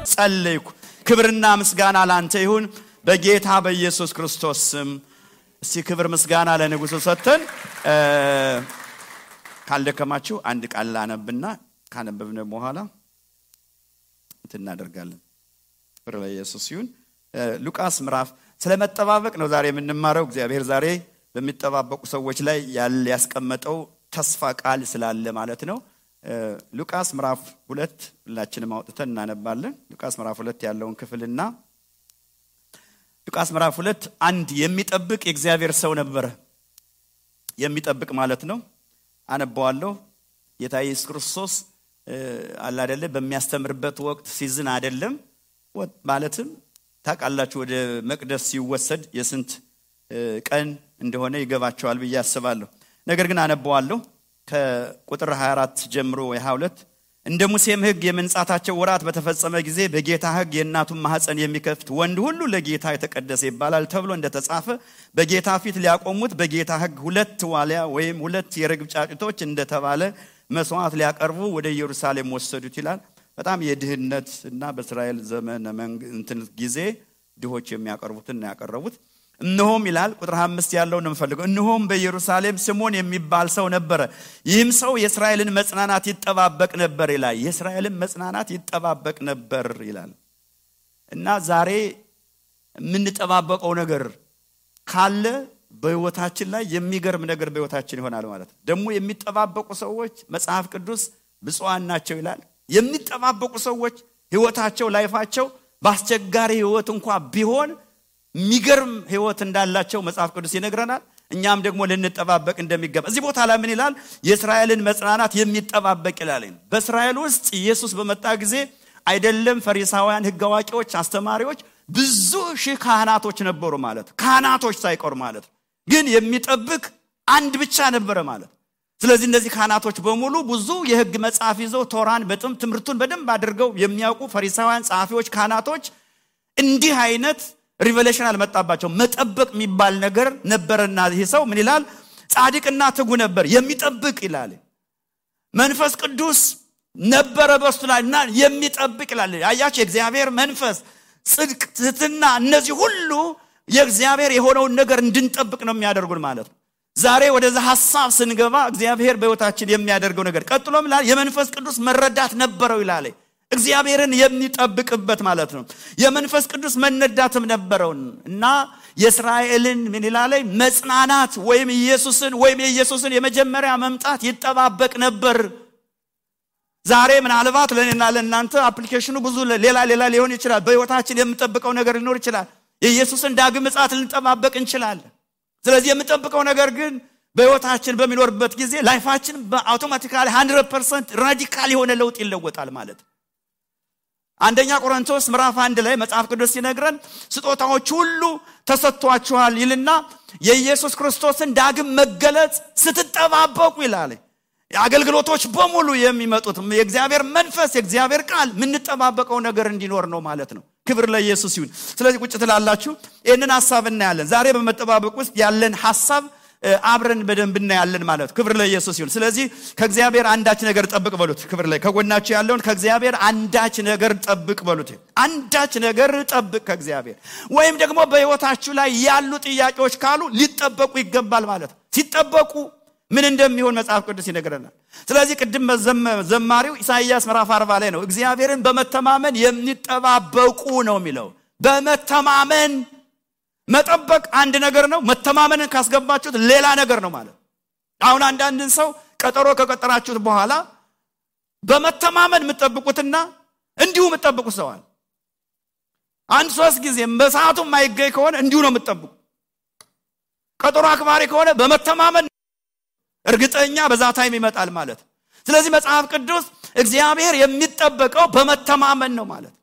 ጸልይኩ። ክብርና ምስጋና ላንተ ይሁን በጌታ በኢየሱስ ክርስቶስ ስም። እስቲ ክብር ምስጋና ለንጉሱ ሰጥተን ካልደከማችሁ አንድ ቃል ላነብና ካነበብነ በኋላ እናደርጋለን። ክብር ለኢየሱስ ይሁን። ሉቃስ ምዕራፍ ስለመጠባበቅ ነው ዛሬ የምንማረው። እግዚአብሔር ዛሬ በሚጠባበቁ ሰዎች ላይ ያስቀመጠው ተስፋ ቃል ስላለ ማለት ነው። ሉቃስ ምዕራፍ 2 ሁላችንም አውጥተን እናነባለን። ሉቃስ ምዕራፍ 2 ያለውን ክፍልና ሉቃስ ምዕራፍ 2 አንድ የሚጠብቅ የእግዚአብሔር ሰው ነበረ። የሚጠብቅ ማለት ነው። አነባዋለሁ። ጌታ ኢየሱስ ክርስቶስ አለ አይደለ በሚያስተምርበት ወቅት ሲዝን አይደለም ማለትም ታቃላችሁ ወደ መቅደስ ሲወሰድ የስንት ቀን እንደሆነ ይገባቸዋል ብዬ አስባለሁ። ነገር ግን አነባዋለሁ ከቁጥር 24 ጀምሮ ወይ22 እንደ ሙሴም ሕግ የመንጻታቸው ወራት በተፈጸመ ጊዜ በጌታ ሕግ የእናቱን ማህፀን የሚከፍት ወንድ ሁሉ ለጌታ የተቀደሰ ይባላል ተብሎ እንደተጻፈ በጌታ ፊት ሊያቆሙት በጌታ ሕግ 2 ዋሊያ ወይም 2 የርግብ ጫጩቶች እንደተባለ መስዋዕት ሊያቀርቡ ወደ ኢየሩሳሌም ወሰዱት ይላል። በጣም የድህነት እና በእስራኤል ዘመን እንትን ጊዜ ድሆች የሚያቀርቡትን ያቀርቡት። እነሆም ይላል ቁጥር 5 ያለው ነው የምፈልገው። እነሆም በኢየሩሳሌም ስምዖን የሚባል ሰው ነበረ። ይህም ሰው የእስራኤልን መጽናናት ይጠባበቅ ነበር ይላል። የእስራኤልን መጽናናት ይጠባበቅ ነበር ይላል። እና ዛሬ የምንጠባበቀው ነገር ካለ በህይወታችን ላይ የሚገርም ነገር በህይወታችን ይሆናል ማለት ነው። ደግሞ የሚጠባበቁ ሰዎች መጽሐፍ ቅዱስ ብፁዓን ናቸው ይላል። የሚጠባበቁ ሰዎች ህይወታቸው ላይፋቸው ባስቸጋሪ ህይወት እንኳን ቢሆን የሚገርም ህይወት እንዳላቸው መጽሐፍ ቅዱስ ይነግረናል። እኛም ደግሞ ልንጠባበቅ እንደሚገባ እዚህ ቦታ ላይ ምን ይላል? የእስራኤልን መጽናናት የሚጠባበቅ ይላል። በእስራኤል ውስጥ ኢየሱስ በመጣ ጊዜ አይደለም ፈሪሳውያን ህግ አዋቂዎች አስተማሪዎች ብዙ ሺህ ካህናቶች ነበሩ ማለት ካህናቶች ሳይቀር ማለት ግን የሚጠብቅ አንድ ብቻ ነበር ማለት። ስለዚህ እነዚህ ካህናቶች በሙሉ ብዙ የህግ መጽሐፍ ይዘው ቶራን በጥም ትምህርቱን በደንብ አድርገው የሚያውቁ ፈሪሳውያን ጻፊዎች ካህናቶች እንዲህ አይነት ሪቨሌሽን አልመጣባቸው። መጠበቅ የሚባል ነገር ነበርና ይሄ ሰው ምን ይላል? ጻድቅና ትጉ ነበር የሚጠብቅ ይላል። መንፈስ ቅዱስ ነበረ በሱ ላይና የሚጠብቅ ይላል። አያችሁ የእግዚአብሔር መንፈስ ጽድቅ ትህትና እነዚህ ሁሉ የእግዚአብሔር የሆነውን ነገር እንድንጠብቅ ነው የሚያደርጉን ማለት ነው። ዛሬ ወደዛ ሐሳብ ስንገባ እግዚአብሔር በህይወታችን የሚያደርገው ነገር ቀጥሎም ይላል የመንፈስ ቅዱስ መረዳት ነበረው ይላል። እግዚአብሔርን የሚጠብቅበት ማለት ነው። የመንፈስ ቅዱስ መነዳትም ነበረው እና የእስራኤልን ምን ይላል መጽናናት ወይም የኢየሱስን የመጀመሪያ መምጣት ይጠባበቅ ነበር። ዛሬ ምናልባት ለኔና ለእናንተ አፕሊኬሽኑ ብዙ ሌላ ሊሆን ይችላል። በህይወታችን የምንጠብቀው ነገር ሊኖር ይችላል። የኢየሱስን ዳግም ምጽአት ልንጠባበቅ እንችላለን። ስለዚህ የምንጠብቀው ነገር ግን በህይወታችን በሚኖርበት ጊዜ ላይፋችን በአውቶማቲካሊ 100% ራዲካል የሆነ ለውጥ ይለወጣል ማለት። አንደኛ ቆሮንቶስ ምዕራፍ 1 ላይ መጽሐፍ ቅዱስ ሲነግረን ስጦታዎች ሁሉ ተሰጥቷችኋል ይልና የኢየሱስ ክርስቶስን ዳግም መገለጽ ስትጠባበቁ ይላል። አገልግሎቶች በሙሉ የሚመጡት የእግዚአብሔር መንፈስ የእግዚአብሔር ቃል ምንጠባበቀው ነገር እንዲኖር ነው ማለት ነው። ክብር ለኢየሱስ ይሁን። ስለዚህ ቁጭ ትላላችሁ ይሄንን ሐሳብ እናያለን። ዛሬ በመጠባበቅ ውስጥ ያለን ሐሳብ አብረን በደንብ እናያለን ማለት ነው። ክብር ለኢየሱስ ይሁን። ስለዚህ ከእግዚአብሔር አንዳች ነገር ጠብቅ በሉት። ክብር ላይ ከጎናችሁ ያለውን ከእግዚአብሔር አንዳች ነገር ጠብቅ በሉት። አንዳች ነገር ጠብቅ ከእግዚአብሔር። ወይም ደግሞ በህይወታችሁ ላይ ያሉ ጥያቄዎች ካሉ ሊጠበቁ ይገባል ማለት ነው። ሲጠበቁ ምን እንደሚሆን መጽሐፍ ቅዱስ ይነግረናል። ስለዚህ ቅድም ዘማሪው ኢሳይያስ ምዕራፍ 40 ላይ ነው እግዚአብሔርን በመተማመን የሚጠባበቁ ነው የሚለው። በመተማመን መጠበቅ አንድ ነገር ነው። መተማመንን ካስገባችሁት ሌላ ነገር ነው ማለት። አሁን አንዳንድን ሰው ቀጠሮ ከቀጠራችሁት በኋላ በመተማመን የምትጠብቁትና እንዲሁ የምትጠብቁ ሰዋል አንድ 3 ጊዜ በሰዓቱ የማይገኝ ከሆነ እንዲሁ ነው የምትጠብቁ። ቀጠሮ አክባሪ ከሆነ በመተማመን እርግጠኛ በዛ ታይም ይመጣል ማለት። ስለዚህ መጽሐፍ ቅዱስ እግዚአብሔር የሚጠበቀው በመተማመን ነው ማለት።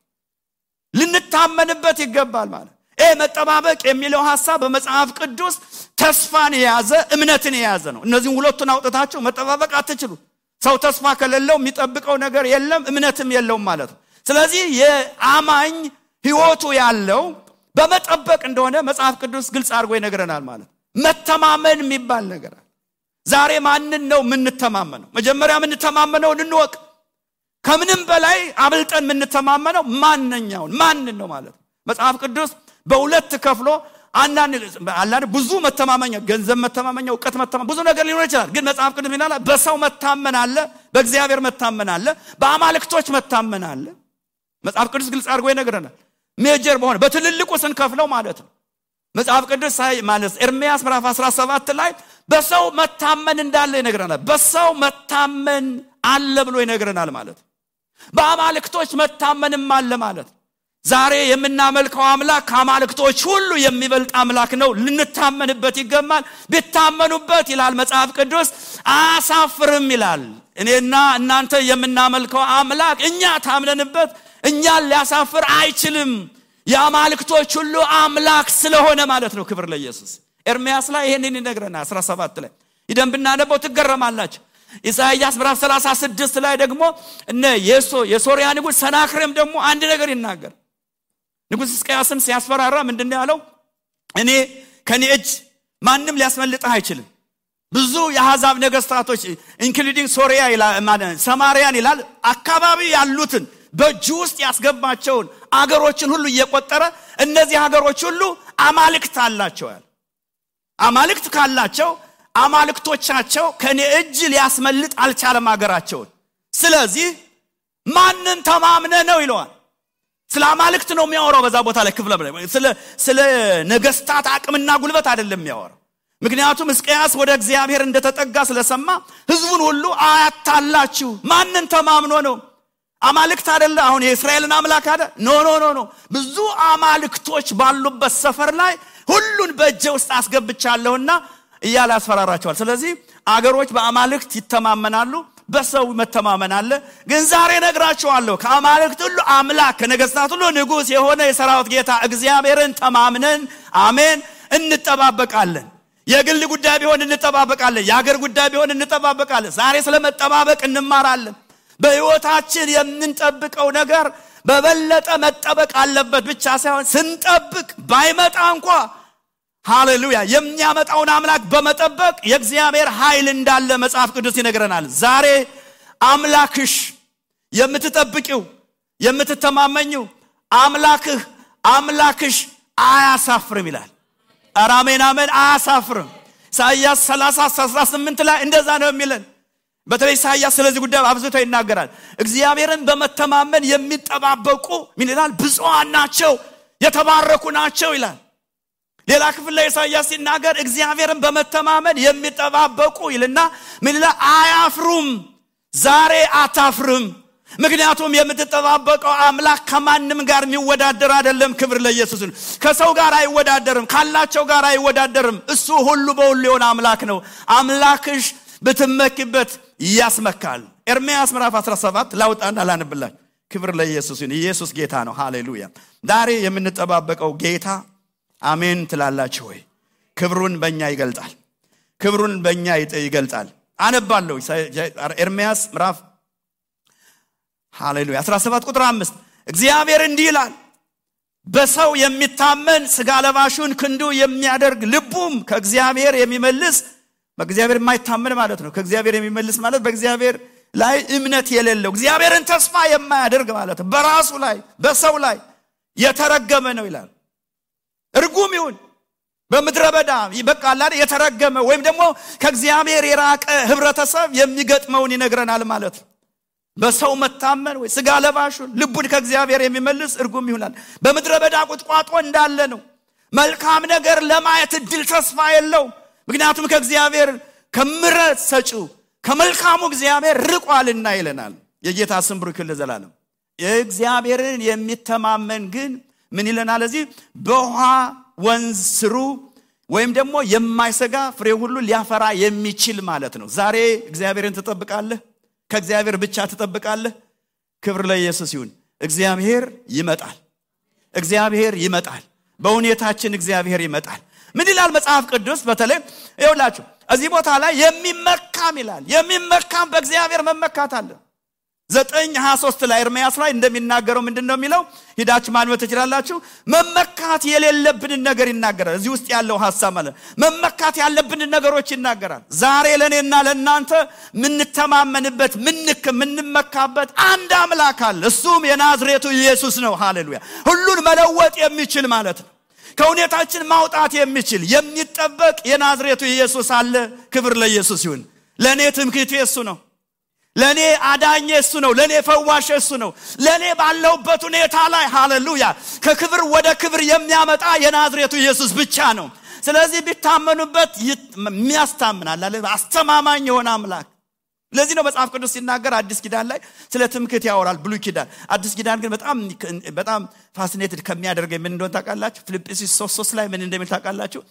ልንታመንበት ይገባል ማለት። መጠባበቅ የሚለው ሐሳብ በመጽሐፍ ቅዱስ ተስፋን የያዘ እምነትን የያዘ ነው። እነዚህን ሁለቱን አውጥታችሁ መጠባበቅ አትችሉ። ሰው ተስፋ ከሌለው የሚጠብቀው ነገር የለም እምነትም የለውም ማለት ነው። ስለዚህ የአማኝ ህይወቱ ያለው በመጠበቅ እንደሆነ መጽሐፍ ቅዱስ ግልጽ አድርጎ ይነግረናል ማለት። መተማመን የሚባል ነገር ዛሬ ማንን ነው የምንተማመነው? መጀመሪያ የምንተማመነው እንወቅ። ከምንም በላይ አብልጠን የምንተማመነው ማንን ነው ማለት መጽሐፍ ቅዱስ በሁለት ከፍሎ አንዳንድ ብዙ መተማመኛ ገንዘብ መተማመኛ ዕውቀት መተማመኛ ብዙ ነገር ሊኖር ይችላል ግን መጽሐፍ ቅዱስ ምን ይላል በሰው መታመን አለ በእግዚአብሔር መታመን አለ በአማልክቶች መታመን አለ መጽሐፍ ቅዱስ ግልጽ አድርጎ ይነግረናል ሜጀር በሆነ በትልልቁ ስንከፍለው ማለት ነው መጽሐፍ ቅዱስ ማለት ኤርምያስ ምዕራፍ 17 ላይ በሰው መታመን እንዳለ ይነግረናል በሰው መታመን አለ ብሎ ይነግረናል ማለት በአማልክቶች መታመንም አለ ማለት ዛሬ የምናመልከው አምላክ ከአማልክቶች ሁሉ የሚበልጥ አምላክ ነው ልንታመንበት ይገባል ቢታመኑበት ይላል መጽሐፍ ቅዱስ አያሳፍርም ይላል እኔና እናንተ የምናመልከው አምላክ እኛ ታምነንበት እኛን ሊያሳፍር አይችልም የአማልክቶች ሁሉ አምላክ ስለሆነ ማለት ነው ክብር ለኢየሱስ ኤርምያስ ላይ ይሄንን ይነግረናል 17 ላይ ይደንብና ነበር ትገረማላችሁ ኢሳይያስ ምዕራፍ 36 ላይ ደግሞ እነ የሶሪያ ንጉስ ሰናክሬም ደግሞ አንድ ነገር ይናገር ንጉስ ሕዝቅያስን ሲያስፈራራ ምንድነው ያለው እኔ ከኔ እጅ ማንንም ሊያስመልጥ አይችልም ብዙ የአሕዛብ ነገስታቶች ኢንክሉዲንግ ሶሪያ ይላል ሰማሪያን ይላል አካባቢ ያሉትን በእጁ ውስጥ ያስገባቸውን አገሮችን ሁሉ እየቆጠረ እነዚህ ሀገሮች ሁሉ አማልክት አላቸው አማልክት ካላቸው አማልክቶቻቸው ከኔ እጅ ሊያስመልጥ አልቻለም ሀገራቸው ስለዚህ ማንን ተማምነ ነው ይለዋል ስለ አማልክት ነው የሚያወራው በዛ ቦታ ላይ ክፍለ ስለ ነገስታት አቅምና ጉልበት አይደለም የሚያወራው ምክንያቱም ሕዝቅያስ ወደ እግዚአብሔር እንደተጠጋ ስለሰማ ህዝቡን ሁሉ አያታላችሁ ማንን ተማምኖ ነው አማልክት አይደለ አሁን የእስራኤልን አምላክ አይደል ኖ ብዙ አማልክቶች ባሉበት ሰፈር ላይ ሁሉን በእጄ ውስጥ አስገብቻለሁና እያለ አስፈራራቸዋል ስለዚህ አገሮች በአማልክት ይተማመናሉ በሰው መተማመን አለ ግን ዛሬ ነግራችኋለሁ ከአማልክት ሁሉ አምላክ ከነገስታት ሁሉ ንጉስ የሆነ የሰራዊት ጌታ እግዚአብሔርን ተማምነን አሜን እንጠባበቃለን የግል ጉዳይ ቢሆን እንጠባበቃለን የሀገር ጉዳይ ቢሆን እንጠባበቃለን ዛሬ ስለመጠባበቅ እንማራለን በህይወታችን የምንጠብቀው ነገር በበለጠ መጠበቅ አለበት ብቻ ሳይሆን ስንጠብቅ ባይመጣ እንኳን ሃሌሉያ የሚያመጣውን አምላክ በመጠበቅ የእግዚአብሔር ኃይል እንዳለ መጽሐፍ ቅዱስ ይነግረናል ዛሬ አምላክሽ የምትጠብቂው የምትተማመኚው አምላክሽ አያሳፍርም ይላል አራሜን አሜን አያሳፍርም ኢሳይያስ 30:18 ላይ እንደዛ ነው የሚለን በተለይ ኢሳይያስ ስለዚህ ጉዳይ አብዝቶ ይናገራል እግዚአብሔርን በመተማመን የሚጠባበቁ ምን ይላል ብፁዓን ናቸው የተባረኩ ናቸው ይላል ሌላ ክፍል ላይ ኢሳይያስ ሲናገር እግዚአብሔርን በመተማመን የሚጠባበቁ ይልና ምን ይላል አያፍሩም ዛሬ አታፍርም ምክንያቱም የምትጠባበቀው አምላክ ከማንም ጋር የሚወዳደር አይደለም ክብር ለኢየሱስ ነው ከሰው ጋር አይወዳደርም ካላቸው ጋር አይወዳደርም እሱ ሁሉ በሁሉ የሆነ አምላክ ነው አምላክሽ በተመክበት ያስመካል ኤርምያስ ምዕራፍ 17 ላውጣና ላንብላችሁ ክብር ለኢየሱስ ነው ኢየሱስ ጌታ ነው ሃሌሉያ ዛሬ የምንጠባበቀው ጌታ አሜን ትላላችሁ ወይ ክብሩን በእኛ ይገልጣል ክብሩን በእኛ ይገልጣል አነባለሁ ኤርምያስ ምዕራፍ ሃሌሉያ 17 ቁጥር 5 እግዚአብሔር እንዲህ ይላል በሰው የሚታመን ስጋ ለባሹን ክንዱ የሚያደርግ ልቡም ከእግዚአብሔር የሚመልስ በእግዚአብሔር የማይታመን ማለት ነው ከእግዚአብሔር የሚመልስ ማለት በእግዚአብሔር ላይ እምነት የሌለው እግዚአብሔርን ተስፋ የማያደርግ ማለት በራሱ ላይ በሰው ላይ የተረገመ ነው ይላል እርጉም ይሁን በመድረ በዳ ይበቃል አይደል የተረገመ ወይም ደግሞ ከእግዚአብሔር የራቀ ህብረተሰብ የሚገጥመውን ይነግረናል ማለት በሰው መታመን ወይ ስጋ ለባሹን ልቡን ከእግዚአብሔር የሚመልስ እርጉም ይሆናል በመድረ በዳ ቁጥቋጦ እንዳለ ነው መልካም ነገር ለማየት ድል ተስፋ የለው ምክንያቱም ከእግዚአብሔር ከምሕረት ሰጪው ከመልካሙ እግዚአብሔር ርቋልና ይለናል የጌታ ስም ብሩክ ለዘላለም እግዚአብሔርን የሚተማመን ግን ምን ይለናል እዚህ በውሃ ወንዝ ስሩ ወይም ደግሞ የማይሰጋ ፍሬ ሁሉ ሊያፈራ የሚችል ማለት ነው ዛሬ እግዚአብሔርን ተጠብቃለህ ከእግዚአብሔር ብቻ ተጠብቃለህ ክብር ለኢየሱስ ይሁን እግዚአብሔር ይመጣል በሁኔታችን እግዚአብሔር ይመጣል ምን ይላል መጽሐፍ ቅዱስ በተለይ ይኸውላችሁ እዚህ ቦታ ላይ የሚመካም ይላል የሚመካም በእግዚአብሔር መመካት አለ 9:23 ላይ ኤርምያስ ላይ እንደሚናገረው ምንድነው የሚለው? ሂዳችሁ ማንበብ ትችላላችሁ። መመካት የሌለብን ነገር ይናገራል። እዚህ ውስጥ ያለው ሐሳብ ማለት መመካት ያለብን ነገሮች ይናገራል። ዛሬ ለኔና ለናንተ ምንተማመንበት ምንመካበት አንድ አምላክ አለ። እሱም የናዝሬቱ ኢየሱስ ነው። ሃሌሉያ! ሁሉን መለወጥ የሚችል ማለት ነው። ከሁኔታችን ማውጣት የሚችል የሚጠበቅ የናዝሬቱ ኢየሱስ አለ። ክብር ለኢየሱስ ይሁን። ለኔ ትምክህቴ እሱ ነው። ለኔ አዳኜ እሱ ነው። ለኔ ፈዋሽ እሱ ነው። ለኔ ባለውበት ሁኔታ ላይ ሃሌሉያ ከክብር ወደ ክብር የሚያመጣ የናዝሬቱ ኢየሱስ ብቻ ነው። ስለዚህ ቢታመኑበት የሚያስታምናል አለ። አስተማማኝ የሆነ አምላክ። ለዚህ ነው መጽሐፍ ቅዱስ ሲናገር አዲስ ኪዳን ላይ ስለ ትምክህት ያወራል። ብሉይ ኪዳን አዲስ ኪዳን ግን በጣም ፋሲኔትድ ከሚያደርገኝ ምን እንደሆነ ታውቃላችሁ? ፊልጵስዩስ 3:3 ላይ ምን እንደሚል ታውቃላችሁ?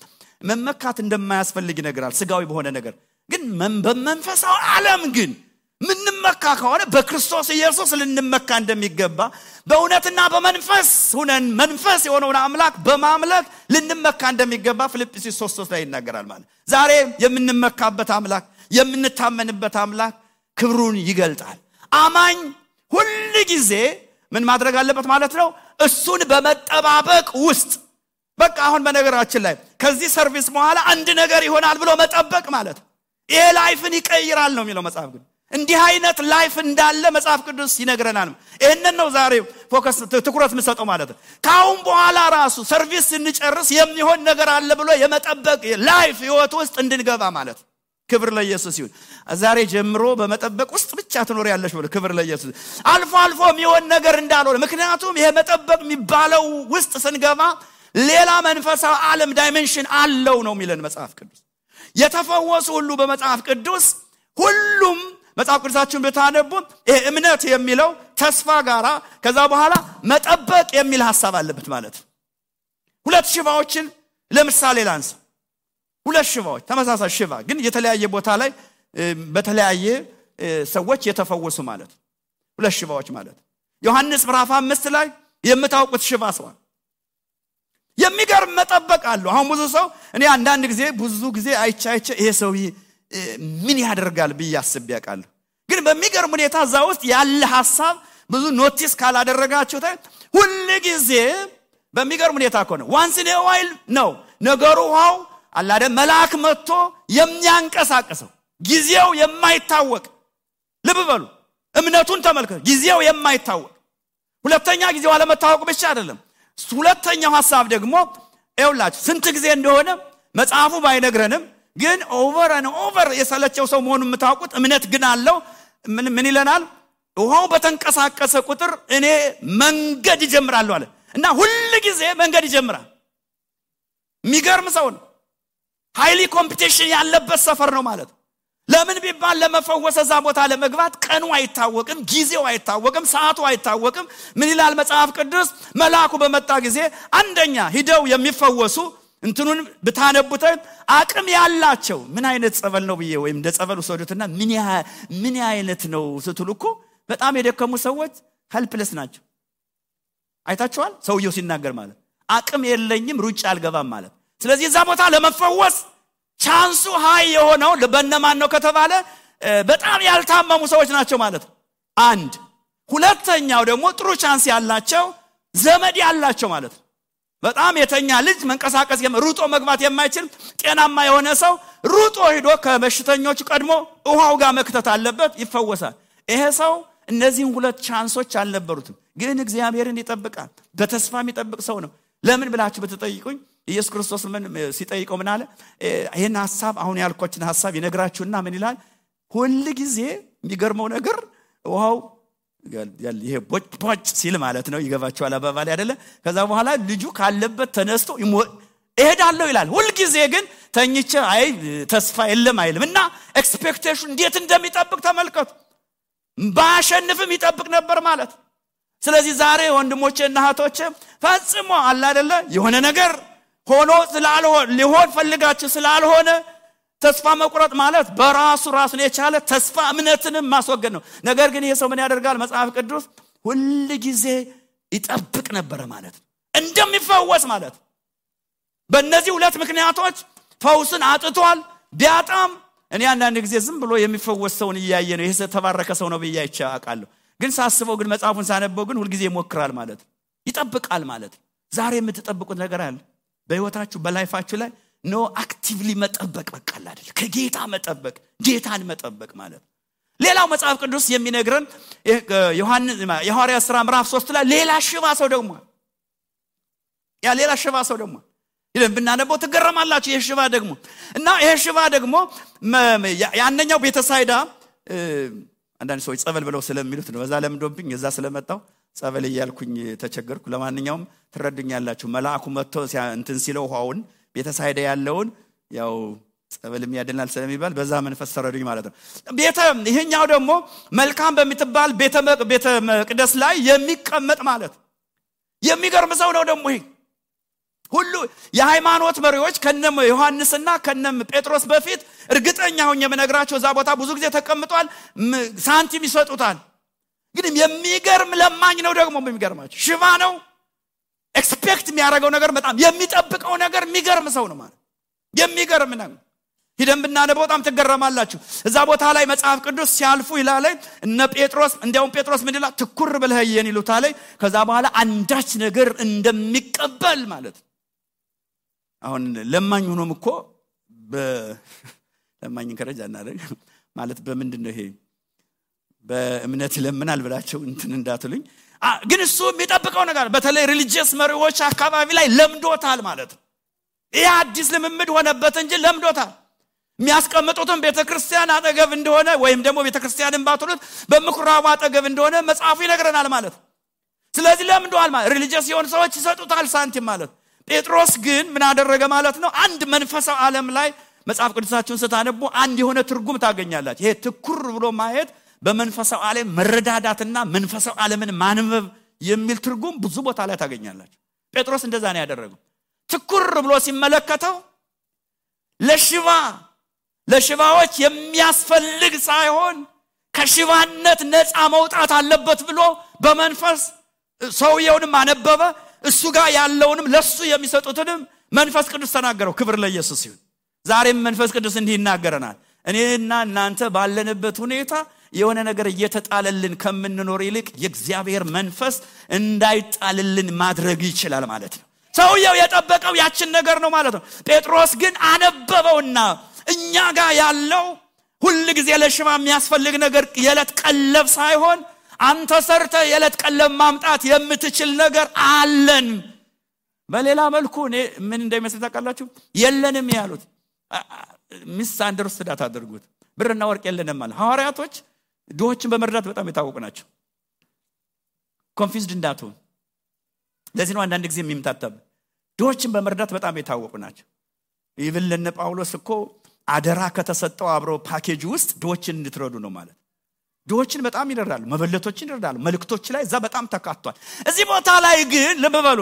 መመካት እንደማያስፈልግ ይነግራል። ስጋዊ በሆነ ነገር ግን በመንፈሳዊ ዓለም ግን ምንመካ ከሆነ በክርስቶስ ኢየሱስ ልንመካ እንደሚገባ በእውነትና በመንፈስ ሆነን መንፈስ የሆነውን አምላክ በማምለክ ልንመካ እንደሚገባ ፊልጵስዩስ 3:3 ላይ ይናገራል። ማለት ዛሬ የምንመካበት አምላክ የምንታመንበት አምላክ ክብሩን ይገልጣል። አማኝ ሁሉ ጊዜ ምን ማድረግ አለበት ማለት ነው? እሱን በመጠባበቅ ውስጥ በቃ አሁን በነገራችን ላይ ከዚህ ሰርቪስ በኋላ አንድ ነገር ይሆናል ብሎ መጠበቅ ማለት ይሄ ላይፍን ይቀይራል ነው የሚለው መጽሐፍ ቅዱስ። እንዲህ አይነት ላይፍ እንዳለ መጽሐፍ ቅዱስ ይነግረናል። ይሄንን ነው ዛሬ ፎከስ ትኩረት መስጠው ማለት ነው። ካሁን በኋላ ራሱ ሰርቪስ እንጨርስ የሚሆን ነገር አለ ብሎ የመጠበቅ ላይፍ ህይወት ውስጥ እንድንገባ ማለት። ክብር ለኢየሱስ ይሁን። ዛሬ ጀምሮ በመጠበቅ ውስጥ ብቻ ትኖር ያለሽ ብሎ ክብር ለኢየሱስ። አልፎ የሚሆን ነገር እንዳልሆነ ምክንያቱም ይሄ መጠበቅ የሚባለው ውስጥ ስንገባ ሌላ መንፈሳዊ ዓለም ዳይሜንሽን አለው ነው የሚለን መጽሐፍ ቅዱስ። የተፈወሱ ሁሉ በመጽሐፍ ቅዱስ ሁሉም መጽሐፍ ቅዱሳችሁን ብታነቡ ይሄ እምነት የሚለው ተስፋ ጋራ ከዛ በኋላ መጠበቅ የሚል ሐሳብ አለበት ማለት። ሁለት ሽባዎችን ለምሳሌ ላንሳ። ሁለት ሽባዎች ተመሳሳይ ሽባ ግን የተለያየ ቦታ ላይ በተለያየ ሰዎች የተፈወሱ ማለት ሁለት ሽባዎች ማለት። ዮሐንስ ምዕራፍ 5 ላይ የምታውቁት ሽባ ሰው የሚገርም መጠበቅ አለው። አሁን እኔ አንዳንድ ጊዜ አይቻ ይሄ ሰው ምን ያደርጋል ብያስብ ያውቃለሁ። ግን በሚገርም ሁኔታ እዛ ውስጥ ያለ ሐሳብ ብዙ ኖቲስ ካላደረጋችሁ ሁሉ ጊዜ በሚገርም ሁኔታ ነው ዋንስ ኢን ኤ ዋይል ነው ነገሩ ዋው አላደ መልአክ መጥቶ የሚያንቀሳቀሰው ጊዜው የማይታወቅ ልብ በሉ እምነቱን ተመልከቱ። ጊዜው የማይታወቅ ሁለተኛ ጊዜው አለመታወቅ ብቻ አይደለም። ሁለተኛው ሐሳብ ደግሞ ኤውላች ስንት ጊዜ እንደሆነ መጽሐፉ ባይነግረንም ግን ኦቨር የሰለቸው ሰው መሆኑን የምታውቁት እምነት ግን አለው። ምን ይለናል? ውሃው በተንቀሳቀሰ ቁጥር እኔ መንገድ ይጀምራለሁ አለ እና ሁሉ ጊዜ መንገድ ይጀምራል። የሚገርም ሰው ነው። ሃይሊ ኮምፒቲሽን ያለበት ሰፈር ነው ማለት። ለምን ቢባል ለመፈወስ እዛ ቦታ ለመግባት ቀኑ አይታወቅም፣ ጊዜው አይታወቅም፣ ሰዓቱ አይታወቅም። ምን ይላል መጽሐፍ ቅዱስ? መልአኩ በመጣ ጊዜ አንደኛ ሂደው የሚፈወሱ እንትኑን ብታነቡት አቅም ያላቸው ምን አይነት ጸበል ነው ብዬ ወይም እንደ ጸበል ወሰዱትና ምን አይነት ነው ስትሉኮ በጣም የደከሙ ሰዎች ሄልፕለስ ናቸው። አይታችኋል? ሰውየው ሲናገር ማለት አቅም የለኝም ሩጫ አልገባም ማለት። ስለዚህ እዛ ቦታ ለመፈወስ ቻንሱ ሃይ የሆነው ለበነማን ነው ከተባለ በጣም ያልታመሙ ሰዎች ናቸው ማለት አንድ። ሁለተኛው ደግሞ ጥሩ ቻንስ ያላቸው ዘመድ ያላቸው ማለት። በጣም የተኛ ልጅ መንቀሳቀስ ሩጦ መግባት የማይችል ጤናማ የሆነ ሰው ሩጦ ሄዶ ከበሽተኞች ቀድሞ ውሃው ጋር መክተት አለበት፣ ይፈወሳል። ይሄ ሰው እነዚህን ሁለት ቻንሶች አልነበሩትም፣ ግን እግዚአብሔርን ይጠብቃል። በተስፋ የሚጠብቅ ሰው ነው። ለምን ብላችሁ በተጠይቁኝ ኢየሱስ ክርስቶስ ምን ሲጠይቀው ምን አለ? ይሄን ሐሳብ አሁን ያልኳችን ሐሳብ ይነግራችሁና ምን ይላል? ሁሉ ጊዜ የሚገርመው ነገር ውሃው ይሄ ቦጭ ሲል ማለት ነው። ይገባችኋል አባባል አይደለ? ከዛ በኋላ ልጁ ካለበት ተነስቶ እሄዳለሁ ይላል። ሁሉ ጊዜ ግን ተኝቼ አይ ተስፋ የለም አይልም። እና ኤክስፔክቴሽን እንዴት እንደሚጠብቅ ተመልከቱ። ባሸንፍም ይጠብቅ ነበር ማለት። ስለዚህ ዛሬ ወንድሞቼና እህቶቼ ፈጽሞ አለ አይደለ የሆነ ነገር ሆኖ ስላልሆነ ሊሆን ፈልጋችሁ ስላልሆነ ተስፋ መቁረጥ ማለት በራሱ ራሱን የቻለ ተስፋ እምነትንም ማስወገድ ነው። ነገር ግን ይሄ ሰው ምን ያደርጋል? መጽሐፍ ቅዱስ ሁሉ ጊዜ ይጠብቅ ነበር ማለት እንደሚፈወስ ማለት። በእነዚህ ሁለት ምክንያቶች ፈውስን አጥቷል። ቢያጣም እኔ አንዳንድ ጊዜ ዝም ብሎ የሚፈወስ ሰውን እያየ ነው ይሄ ተባረከ ሰው ነው ብዬ አይቻለሁ። ግን ሳስበው ግን መጽሐፉን ሳነበው ግን ሁሉ ጊዜ ይሞክራል ማለት ይጠብቃል ማለት ዛሬ የምትጠብቁት ነገር አለ በህይወታችሁ በላይፋችሁ ላይ ኖ አክቲቭሊ መጠበቅ በቃል አይደል ከጌታ መጠበቅ ጌታን መጠበቅ ማለት ሌላው መጽሐፍ ቅዱስ የሚነግረን ዮሐንስ የሐዋርያት ሥራ ምዕራፍ 3 ላይ ሌላ ሽባ ሰው ደግሞ ይለን ብናነበው ትገረማላችሁ የሽባ ደግሞ እና የሽባ ደግሞ ያንኛው ቤተሳይዳ አንዳንድ ሰዎች ጸበል ብለው ስለሚሉት ነው በዛ ለምዶብኝ እዛ ስለመጣው ጸበል ይያልኩኝ ተቸገርኩ ለማንኛውም ትረዱኛላችሁ መልአኩ መጥቶ እንትን ሲለው ውሃውን ቤተሳይዳ ያለውን ያው ጸበልም ያደናል ስለሚባል በዛ መንፈስ ተረዱኝ ማለት ነው ይሄኛው ደግሞ መልካም በሚትባል ቤተ መቅደስ ላይ የሚቀመጥ ማለት የሚገርም ሰው ነው ደግሞ ይሄ ሁሉ የሃይማኖት መሪዎች ከነም ዮሐንስና ከነም ጴጥሮስ በፊት እርግጠኛ ሆኜ መነግራቸው እዛ ቦታ ብዙ ጊዜ ተቀምጧል ሳንቲም ይሰጡታል ግን የሚገርም ለማኝ ነው ደግሞ የሚገርማችሁ ሽባ ነው ኤክስፔክት የሚያደርገው ነገር በጣም የሚጠብቀው ነገር የሚገርም ሰው ነው ማለት የሚገርም ነው ሄደን ብናነበው በጣም ትገረማላችሁ እዛ ቦታ ላይ መጽሐፍ ቅዱስ ሲያልፉ ይላል እነ ጴጥሮስ እንዲያውም ጴጥሮስ ምን ይላል ትኩር ብለህ ይየን ይሉታል ከዛ በኋላ አንዳች ነገር እንደሚቀበል ማለት አሁን ለማኝ ሆኖም እኮ ለማኝ ከረጃና ማለት በምንድነው ይሄ በእምነት ለምናል ብላችሁ እንትን እንዳትሉኝ ግን እሱ የሚጠብቀው ነገር በተለይ ሪሊጂየስ መሪዎች አካባቢ ላይ ለምዶታል ማለት ይሄ አዲስ ልምምድ ሆነበት እንጂ ለምዶታል የሚያስቀምጡትን ቤተክርስቲያን አጠገብ እንደሆነ ወይም ደግሞ ቤተክርስቲያንን ባትሉት በምኩራቡ አጠገብ እንደሆነ መጽሐፉ ይነግረናል ማለት ስለዚህ ለምዶታል ማለት ሪሊጂየስ የሆኑ ሰዎች ይሰጡታል ሳንቲም ማለት ጴጥሮስ ግን ምን አደረገ ማለት ነው አንድ መንፈሳዊ ዓለም ላይ መጽሐፍ ቅዱሳችሁን ስታነቡ አንድ የሆነ ትርጉም ታገኛላችሁ ይሄ ትኩር ብሎ ማየት በመንፈሳዊ ዓለም መረዳዳትና መንፈሳዊ ዓለምን ማንበብ የሚል ትርጉም ብዙ ቦታ ላይ ታገኛላችሁ ጴጥሮስ እንደዛ ነው ያደረገው ትኩር ብሎ ሲመለከተው ለሽባዎች የሚያስፈልግ ሳይሆን ከሽባነት ነፃ መውጣት አለበት ብሎ በመንፈስ ሰውየውንም አነበበ እሱ ጋር ያለውንም ለሱ የሚሰጡትንም መንፈስ ቅዱስ ተናገረው ክብር ለኢየሱስ ይሁን ዛሬም መንፈስ ቅዱስ እንዲህ ይናገረናል እኔና እናንተ ባለንበት ሁኔታ የሆነ ነገር እየተጣለልን ከምንኖር ይልቅ የእግዚአብሔር መንፈስ እንዳይጣልልን ማድረግ ይችላል ማለት ነው ሰውየው የጠበቀው ያችን ነገር ነው ማለት ነው ጴጥሮስ ግን አነበበውና እኛ ጋር ያለው ሁሉ ጊዜ ለሽባ የሚያስፈልግ ነገር የለት ቀለብ ሳይሆን አንተ ሰርተ የለት ቀለብ ማምጣት የምትችል ነገር አለን በሌላ መልኩ ምን እንደሚመስል ታውቃላችሁ የለንም ያሉት ሚስ አንደርስታንድ አድርጉት ብርና ወርቅ የለንም ማለት ሐዋርያቶች ድሆችን በመርዳት በጣም የታወቁ ናቸው ኮንፊውዝድ እንዳትሆን ለዚህ ነው አንዳንድ ጊዜ የሚምታታብ ድሆችን በመርዳት በጣም የታወቁ ናቸው ኢቭን ለነ ጳውሎስ እኮ አደራ ከተሰጠው አብሮ ፓኬጅ ውስጥ ድሆችን እንድትረዱ ነው ማለት ድሆችን በጣም ይረዳሉ መበለቶችን ይረዳሉ መልክቶች ላይ እዛ በጣም ተካቷል እዚህ ቦታ ላይ ግን ልበበሉ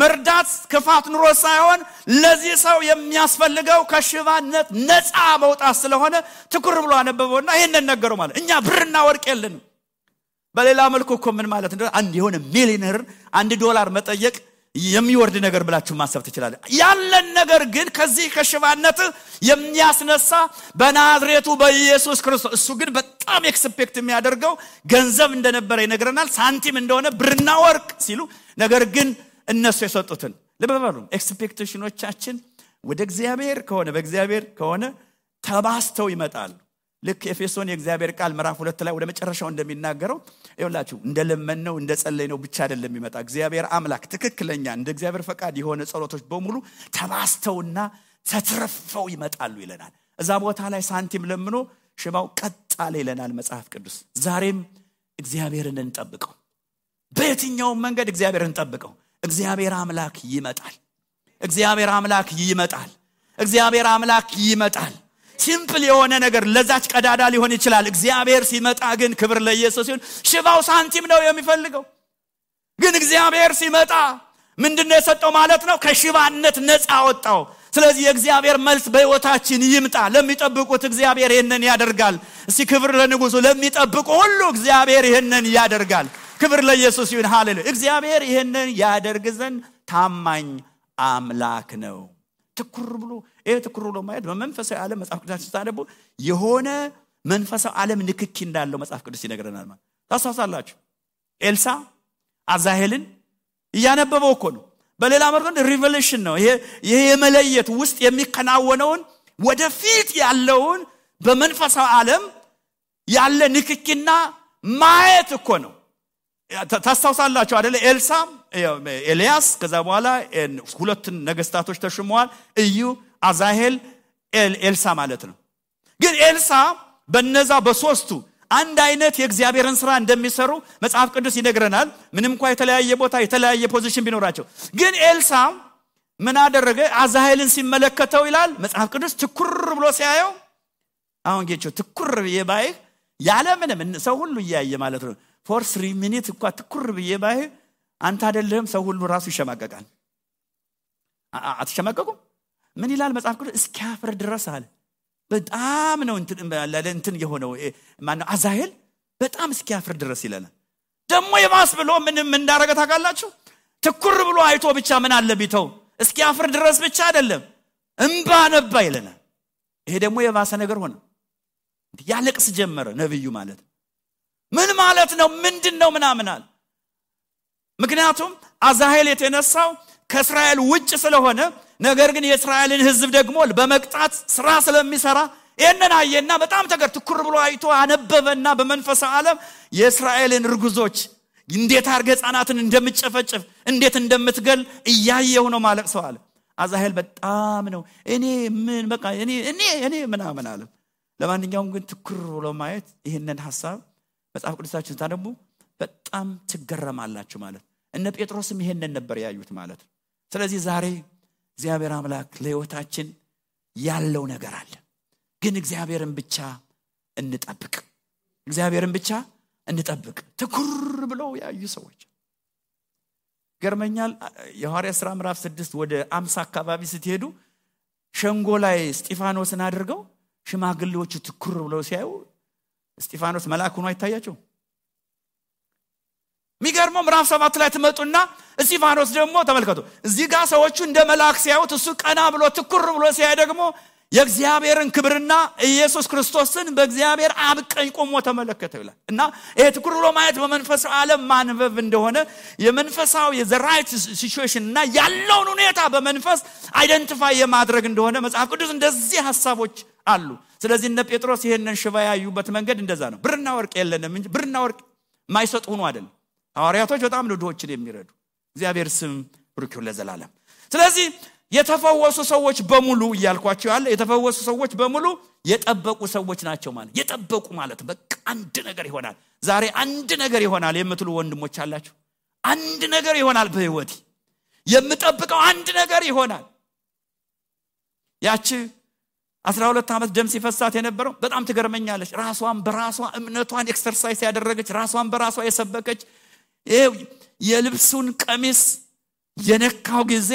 መርዳት ክፋት ኑሮ ሳይሆን ለዚህ ሰው የሚያስፈልገው ከሽባነት ነፃ መውጣት ስለሆነ ትኩር ብሎ አነበበውና ይሄንን ነገረው ማለት እኛ ብርና ወርቅ የለንም በሌላ መልኩ እኮ ምን ማለት እንደሆነ አንድ የሆነ ሚሊዮነር $1 መጠየቅ የሚወርድ ነገር ብላችሁ ማሰብ ትችላላችሁ ያለን ነገር ግን ከዚህ ከሽባነት የሚያስነሳ በናዝሬቱ በኢየሱስ ክርስቶስ እሱ ግን በጣም ኤክስፔክት የሚያደርገው ገንዘብ እንደነበረ ይነግረናል ሳንቲም እንደሆነ ብርና ወርቅ ሲሉ ነገር ግን እነሱ የሰጡትን ለበበሉ ኤክስፔክቴሽኖቻችን ወደ እግዚአብሔር ከሆነ በእግዚአብሔር ከሆነ ተባስተው ይመጣሉ ልክ ኤፌሶን የእግዚአብሔር ቃል ምዕራፍ 2 ላይ ወደ መጨረሻው እንደሚናገረው ይኸውላችሁ እንደለመነው እንደጸለይነው ብቻ አይደለም ይመጣ እግዚአብሔር አምላክ ትክክለኛ እንደ እግዚአብሔር ፈቃድ የሆነ ጸሎቶች በሙሉ ተባስተውና ተትረፈው ይመጣሉ ይለናል እዛ ቦታ ላይ ሳንቲም ለምኖ ሽባው ቀጣለ ይለናል መጽሐፍ ቅዱስ ዛሬም እግዚአብሔርን እንጠብቀው በየትኛው መንገድ እግዚአብሔርን እንጠብቀው እግዚአብሔር አምላክ ይመጣል እግዚአብሔር አምላክ ይመጣል ሲምፕል የሆነ ነገር ለዛች ቀዳዳ ሊሆን ይችላል እግዚአብሔር ሲመጣ ግን ክብር ለኢየሱስ ይሁን ሽባው ሳንቲም ነው የሚፈልገው ግን እግዚአብሔር ሲመጣ ምንድነው የሰጠው ማለት ነው ከሽባነት ነፃ አወጣው ስለዚህ የእግዚአብሔር መልስ በህይወታችን ይምጣ ለሚጠብቁት እግዚአብሔር ይሄንን ያደርጋል እስቲ ክብር ለንጉሱ ለሚጠብቁ ሁሉ እግዚአብሔር ይሄንን ያደርጋል ክብር ለኢየሱስ ይሁን ሃሌሉያ እግዚአብሔር ይሄንን ያደርግ ዘንድ ታማኝ አምላክ ነው ትኩር ብሎ ማየት በመንፈሳዊ ዓለም መጽሐፍ ቅዱስ ታነቡ የሆነ መንፈሳዊ ዓለም ንክኪ እንዳለው መጽሐፍ ቅዱስ ይነግረናል ማለት ታሳሳላችሁ ኤልሳ አዛሄልን ያነበበው እኮ ነው። በሌላ መልኩ ሪቨሌሽን ነው ይሄ የመለየት ውስጥ የሚከናወነውን ወደፊት ያለውን በመንፈሳዊ ዓለም ያለ ንክኪና ማየት እኮ ነው። ታስታውሳላችሁ አይደል? ኤልሳ ኤልያስ ከዛ በኋላ ሁለት ነገስታቶች ተሾመዋል፣ እዩ አዛሄል ኤልሳ ማለት ነው። ግን ኤልሳ በነዛ በሶስቱ አንድ አይነት የእግዚአብሔርን ሥራ እንደሚሰሩ መጽሐፍ ቅዱስ ይነግረናል። ምንም እንኳን የተለያየ ቦታ የተለያየ ፖዚሽን ቢኖራቸው ግን ኤልሳ ምን አደረገ? አዛሄልን ሲመለከተው ይላል መጽሐፍ ቅዱስ ትኩር ብሎ ሲያየው አሁን ጌቾ ትኩር በየባይ ያለ ምንም ሰው ሁሉ ያያየ ማለት ነው። for 3 minutes እንኳን ትኩር በየባይ አንተ አይደለም ሰው ሁሉ ራሱ ይሸማቀቃል። አትሸማቀቁም? ምን ይላል መጽሐፍ ቅዱስ? እስኪያፍር ድረስ አለ። በጣም ነው እንትን የሆነው ማነው አዛሄል በጣም እስኪያፍር ድረስ ይለናል። ደግሞ የባስ ብሎ ምንም እንዳረገ ታውቃላችሁ? ትኩር ብሎ አይቶ ብቻ ምን አለ ቢተው እስኪያፍር ድረስ ብቻ አይደለም እንባ ነባ ይለናል። ይሄ ደግሞ የባሰ ነገር ሆነ። ያለቅስ ጀመረ ነብዩ ማለት ምን ማለት ነው? ምንድነው ምናምናል? ምክንያቱም አዛሄል የተነሳው ከእስራኤል ውጭ ስለሆነ ነገር ግን የእስራኤልን ሕዝብ ደግሞ በመቅጣት ስራ ስለሚሰራ ይሄንን አየና በጣም ትኩር ብሎ አይቶ አነበበና በመንፈሳዊ ዓለም የእስራኤልን ርጉዞች እንዴት አርገ ህፃናትን እንደምትጨፈጭፍ እንዴት እንደምትገል እያየው ነው ማለት ሰው አለ። አዛሄል በጣም ነው እኔ ምን በቃ እኔ ምናምን አለ። ለማንኛውም ግን ትኩር ብሎ ማየት ይሄንን ሐሳብ መጽሐፍ ቅዱሳችን ታነቡ በጣም ትገረማላችሁ ማለት እነ ጴጥሮስም ይሄንን ነበር ያዩት ማለት። ስለዚህ ዛሬ እግዚአብሔር አምላክ ለህይወታችን ያለው ነገር አለ። ግን እግዚአብሔርን ብቻ እንጠብቅ። እግዚአብሔርን ብቻ እንጠብቅ። ትኩር ብለው ያዩ ሰዎች ገርመኛል። የሐዋርያት ሥራ ምዕራፍ 6 ወደ 50 አካባቢ ስትሄዱ ሸንጎ ላይ እስጢፋኖስን አድርገው ሽማግሌዎቹ ትኩር ብለው ሲያዩ እስጢፋኖስ መልአክ ሆኖ አይታያቸው? ሚገርመው ምዕራፍ 7 ላይ ተመጡና እስጢፋኖስ ደግሞ ተመልከቱ እዚህ ጋር ሰዎቹ እንደ መልአክ ሲያዩት እሱ ቀና ብሎ ትኩር ብሎ ሲያይ ደግሞ የእግዚአብሔርን ክብርና ኢየሱስ ክርስቶስን በእግዚአብሔር አብ ቀኝ ቆሞ ተመለከተው ይላል። እና ይሄ ትኩር ብሎ ማየት በመንፈሳዊ ዓለም ማንበብ እንደሆነ የመንፈሳዊ የዘራይት ሲቹዌሽን እና ያለውን ሁኔታ በመንፈስ አይደንቲፋይ የማድረግ እንደሆነ መጽሐፍ ቅዱስ እንደዚህ ሐሳቦች አሉ። ስለዚህ እነ ጴጥሮስ ይሄንን ሽባ ያዩበት መንገድ እንደዛ ነው። ብርና ወርቅ የለንም እንጂ ብርና ወርቅ ማይሰጡ ሆኖ አይደለም። ሐዋርያቶች በጣም ድሆችን የሚረዱ እግዚአብሔር ስም ብሩክ ይሁን ለዘላለም። ስለዚህ የተፈወሱ ሰዎች በሙሉ እያልኳቸው ያለ የተፈወሱ ሰዎች በሙሉ የጠበቁ ሰዎች ናቸው ማለት የጠበቁ ማለት በቃ አንድ ነገር ይሆናል ዛሬ አንድ ነገር ይሆናል የምትሉ ወንድሞች አላችሁ። አንድ ነገር ይሆናል በህይወቴ የምጠብቀው አንድ ነገር ይሆናል። ያቺ 12 ዓመት ደም ሲፈሳት የነበረው በጣም ትገርመኛለች። ራሷን በራሷ እምነቷን ኤክሰርሳይዝ ያደረገች ራሷን በራሷ የሰበከች የልብሱን ቀሚስ የነካው ጊዜ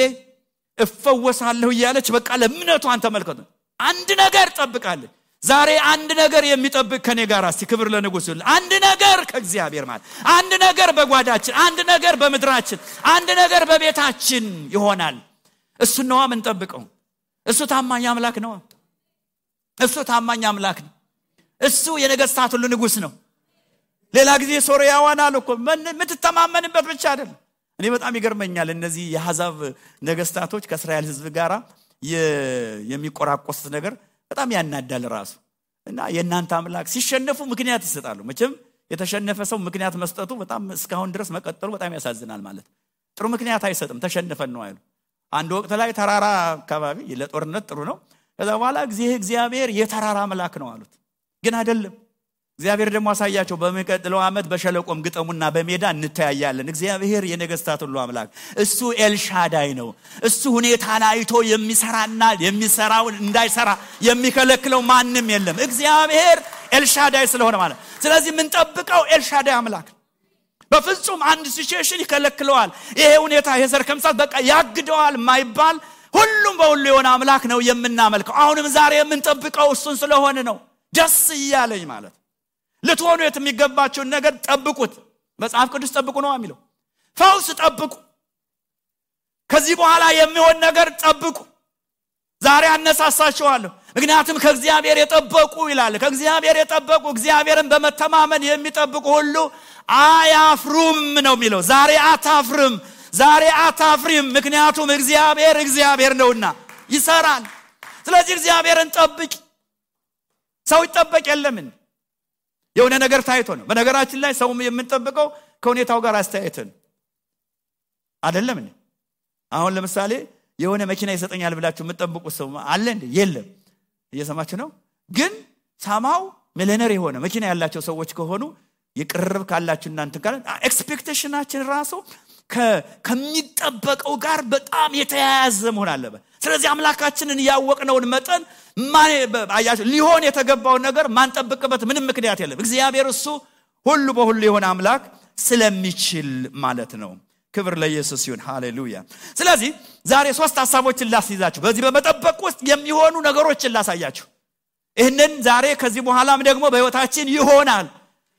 እፈወሳለሁ እያለች በቃ ለእምነቷን ተመልከቱ። አንድ ነገር ጠብቃለች። ዛሬ አንድ ነገር የሚጠብቅ ከኔ ጋር እስቲ ክብር ለንጉሥ ይሁን። አንድ ነገር ከእግዚአብሔር ማለት አንድ ነገር በጓዳችን አንድ ነገር በመድራችን አንድ ነገር በቤታችን ይሆናል። እሱ ነው የምንጠብቀው። እሱ ታማኝ አምላክ ነው። እሱ ታማኝ አምላክ ነው። እሱ የነገስታት ሁሉ ንጉሥ ነው። ሌላ ጊዜ ሶርያዋን አልኮ ምትተማመንበት ብቻ አይደለም። እኔ በጣም ይገርመኛል እነዚህ የአሕዛብ ነገስታቶች ከእስራኤል ሕዝብ ጋራ የሚቆራቆሱት ነገር በጣም ያናዳል ራሱ። እና የእናንተ አምላክ ሲሸነፉ ምክንያት ይሰጣሉ። መቼም የተሸነፈ ሰው ምክንያት መስጠቱ በጣም እስካሁን ድረስ መቀጠሉ በጣም ያሳዝናል ማለት። ጥሩ ምክንያት አይሰጥም ተሸነፈን ነው አይሉ። አንድ ወቅት ላይ ተራራ አካባቢ ለጦርነት ጥሩ ነው። ከዛ በኋላ እግዚአብሔር የተራራ አምላክ ነው አሉት። ግን አይደለም። እግዚአብሔር ደግሞ አሳያቸው በሚቀጥለው ዓመት በሸለቆም ግጠሙና በሜዳ እንተያያለን። እግዚአብሔር የነገስታት ሁሉ አምላክ እሱ ኤልሻዳይ ነው። እሱ ሁኔታን አይቶ የሚሰራና የሚሰራውን እንዳይሰራ የሚከለክለው ማንም የለም። እግዚአብሔር ኤልሻዳይ ስለሆነ ማለት። ስለዚህ ምን ጠብቀው ኤልሻዳይ አምላክ በፍጹም አንድ ሲቹዌሽን ይከለክለዋል። ይሄ ሁኔታ ይሄ ሰርከምሳት በቃ ያግደዋል ማይባል ሁሉም በሁሉ የሆነ አምላክ ነው የምናመልከው። አሁንም ዛሬ የምንጠብቀው እሱን ስለሆነ ነው ደስ ይያለኝ ማለት። ልትሆኑ የሚገባችሁን ነገር ጠብቁት። መጽሐፍ ቅዱስ ጠብቁ ነው የሚለው። ፈውስ ጠብቁ። ከዚህ በኋላ የሚሆን ነገር ጠብቁ። ዛሬ አነሳሳችኋለሁ። ምክንያቱም ከእግዚአብሔር የጠበቁ ይላል። ከእግዚአብሔር የጠበቁ እግዚአብሔርን በመተማመን የሚጠብቁ ሁሉ አያፍሩም ነው የሚለው። ዛሬ አታፍሪም ምክንያቱም እግዚአብሔር ነውና ይሰራል። ስለዚህ እግዚአብሔርን ጠብቂ። ሰው ይጠበቅ የለምን የሆነ ነገር ታይቶ ነው። በነገራችን ላይ ሰው የምንጠብቀው ከሁኔታው ጋር አስተያየትን አይደለም እንዴ? አሁን ለምሳሌ የሆነ መኪና ይሰጠኛል ብላችሁ የምትጠብቁት ሰው አለ እንዴ? የለም። እየሰማችሁ ነው። ግን ሳማው ሚሊዮነር የሆነ መኪና ያላቸው ሰዎች ከሆኑ ይቅርብ ካላችሁ እናንተ ጋር ኤክስፔክቴሽናችን ራሱ ከሚጠበቀው ጋር በጣም የተያያዘ መሆን አለበት። ስለዚህ አምላካችንን ያወቅነውን መጠን ሊሆን የተገባው ነገር ማንጠብቅበት ምንም ምክንያት የለም። እግዚአብሔር እሱ ሁሉ በሁሉ የሆነ አምላክ ስለሚችል ማለት ነው። ክብር ለኢየሱስ ይሁን። ሃሌሉያ። ስለዚህ ዛሬ 3 ሐሳቦችን ላስይዛችሁ፣ በዚህ በመጠበቅ ውስጥ የሚሆኑ ነገሮችን ላሳያችሁ። ይሄንን ዛሬ ከዚህ በኋላም ደግሞ በህይወታችን ይሆናል።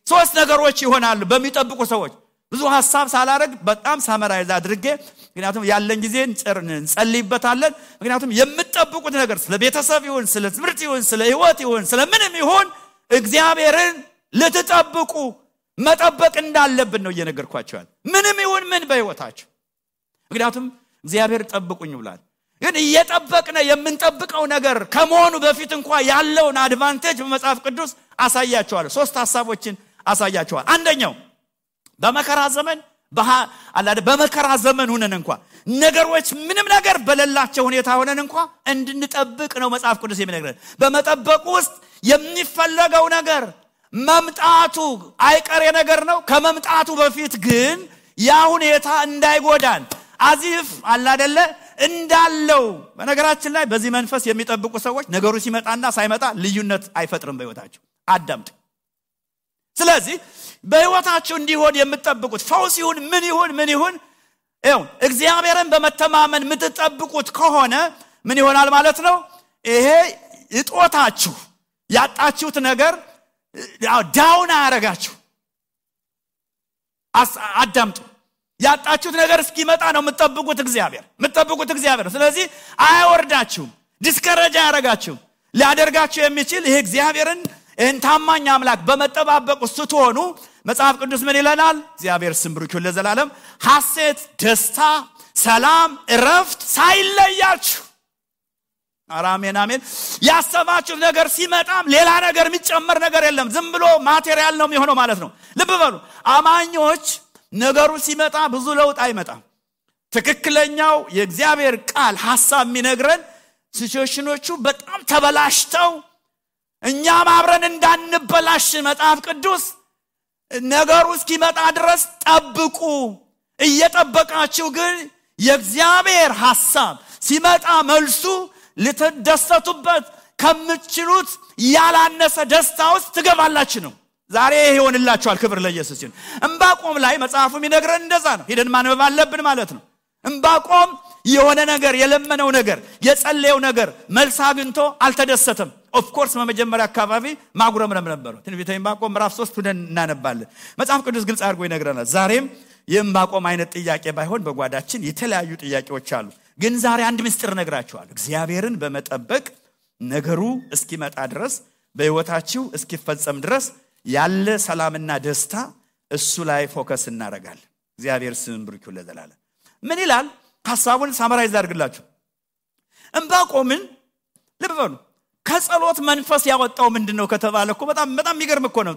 3 ነገሮች ይሆናሉ በሚጠብቁ ሰዎች። ብዙ ሐሳብ ሳላረግ በጣም ሳመራይዝ አድርጌ ምክንያቱም ያለን ጊዜ እንጸልይበታለን። ምክንያቱም የምትጠብቁት ነገር ስለ ቤተሰብ ይሁን ስለ ትምህርት ይሁን ስለ ህይወት ይሁን ስለ ምንም ይሁን እግዚአብሔርን ልትጠብቁ መጠበቅ እንዳለብን ነው እየነገርኳችሁ። ምንም ይሁን ምን በህይወታችሁ ምክንያቱም እግዚአብሔር ጠብቁኝ ብሏል። ግን እየጠበቅነ የምንጠብቀው ነገር ከመሆኑ በፊት እንኳን ያለውን አድቫንቴጅ በመጽሐፍ ቅዱስ አሳያችኋለሁ። 3 ሐሳቦችን አሳያችኋለሁ። አንደኛው በመከራ ዘመን ሆነን እንኳን ነገሮች ምንም ነገር በሌላቸው ሁኔታ ሆነን እንኳን እንድንጠብቅ ነው መጽሐፍ ቅዱስ የሚነግረን። በመጠበቅ ውስጥ የሚፈለገው ነገር መምጣቱ አይቀሬ ነገር ነው። ከመምጣቱ በፊት ግን ያ ሁኔታ እንዳይጎዳን አዚፍ አይደለ እንዳለው። በነገራችን ላይ በዚህ መንፈስ የሚጠብቁ ሰዎች ነገሩ ሲመጣና ሳይመጣ ልዩነት አይፈጥርም በህይወታቸው። አዳምጡ። ስለዚህ በህይወታችሁ እንዲሆን የምትጠብቁት ፈውስ ይሁን ምን ይሁን እግዚአብሔርን በመተማመን የምትጠብቁት ከሆነ ምን ይሆናል ማለት ነው? ይሄ እጦታችሁ ያጣችሁት ነገር ዳውን አያረጋችሁ። አዳምጡ። ያጣችሁት ነገር እስኪመጣ ነው የምትጠብቁት እግዚአብሔር። ስለዚህ አያወርዳችሁም፣ ዲስከሬጅ አያረጋችሁም። ሊያደርጋችሁ የሚችል ይሄ እግዚአብሔርን ታማኝ አምላክ በመጠባበቅ ስትሆኑ መጽሐፍ ቅዱስ ምን ይለናል? እግዚአብሔር ስም ብሩክ ይሁን ለዘላለም። ሐሴት፣ ደስታ፣ ሰላም፣ እረፍት ሳይለያችሁ። አሜን። ያሰባችሁት ነገር ሲመጣም ሌላ ነገር የሚጨመር ነገር የለም። ዝም ብሎ ማቴሪያል ነው የሚሆነው ማለት ነው። ልብ በሉ አማኞች ነገሩ ሲመጣ ብዙ ለውጥ አይመጣም። ትክክለኛው የእግዚአብሔር ቃል ሐሳብ የሚነግረን ሲቹዌሽኖቹ በጣም ተበላሽተው እኛም አብረን እንዳንበላሽ መጽሐፍ ቅዱስ ነገሩ እስኪመጣ ድረስ ጠብቁ። እየጠበቃችሁ ግን የእግዚአብሔር ሐሳብ ሲመጣ መልሱ ልትደሰቱበት ከምትችሉት ያላነሰ ደስታ ውስጥ ትገባላችሁ ነው። ዛሬ ይሆንላችኋል። ክብር ለኢየሱስ ይሁን። ዕንባቆም ላይ መጽሐፉ የሚነግረን እንደዛ ነው። ሄደን ማንበብ አለብን ማለት ነው። ዕንባቆም የሆነ ነገር የለመነው ነገር የጸለየው ነገር መልስ አግኝቶ አልተደሰተም። ኦፍ ኮርስ በመጀመሪያ አካባቢ ማጉረምረም ነበር። ትንቢተ ዕንባቆም ምዕራፍ 3 ሄደን እናነባለን። መጽሐፍ ቅዱስ ግልጽ አድርጎ ይነግረናል። ዛሬም የዕንባቆም አይነት ጥያቄ ባይሆን በጓዳችን የተለያዩ ጥያቄዎች አሉ። ግን ዛሬ አንድ ምስጢር ነግራችኋለሁ። እግዚአብሔርን በመጠበቅ ነገሩ እስኪመጣ ድረስ በህይወታችሁ እስኪፈጸም ድረስ ያለ ሰላምና ደስታ እሱ ላይ ፎከስ እናደርጋለን። እግዚአብሔር ስም ብሩክ ይሁን ለዘላለም። ምን ይላል? ሐሳቡን ሳመራይዝ አድርግላችሁ። ዕንባቆምን ልብ በሉ። ከጸሎት መንፈስ ያወጣው ምንድነው ከተባለ እኮ በጣም የሚገርም እኮ ነው።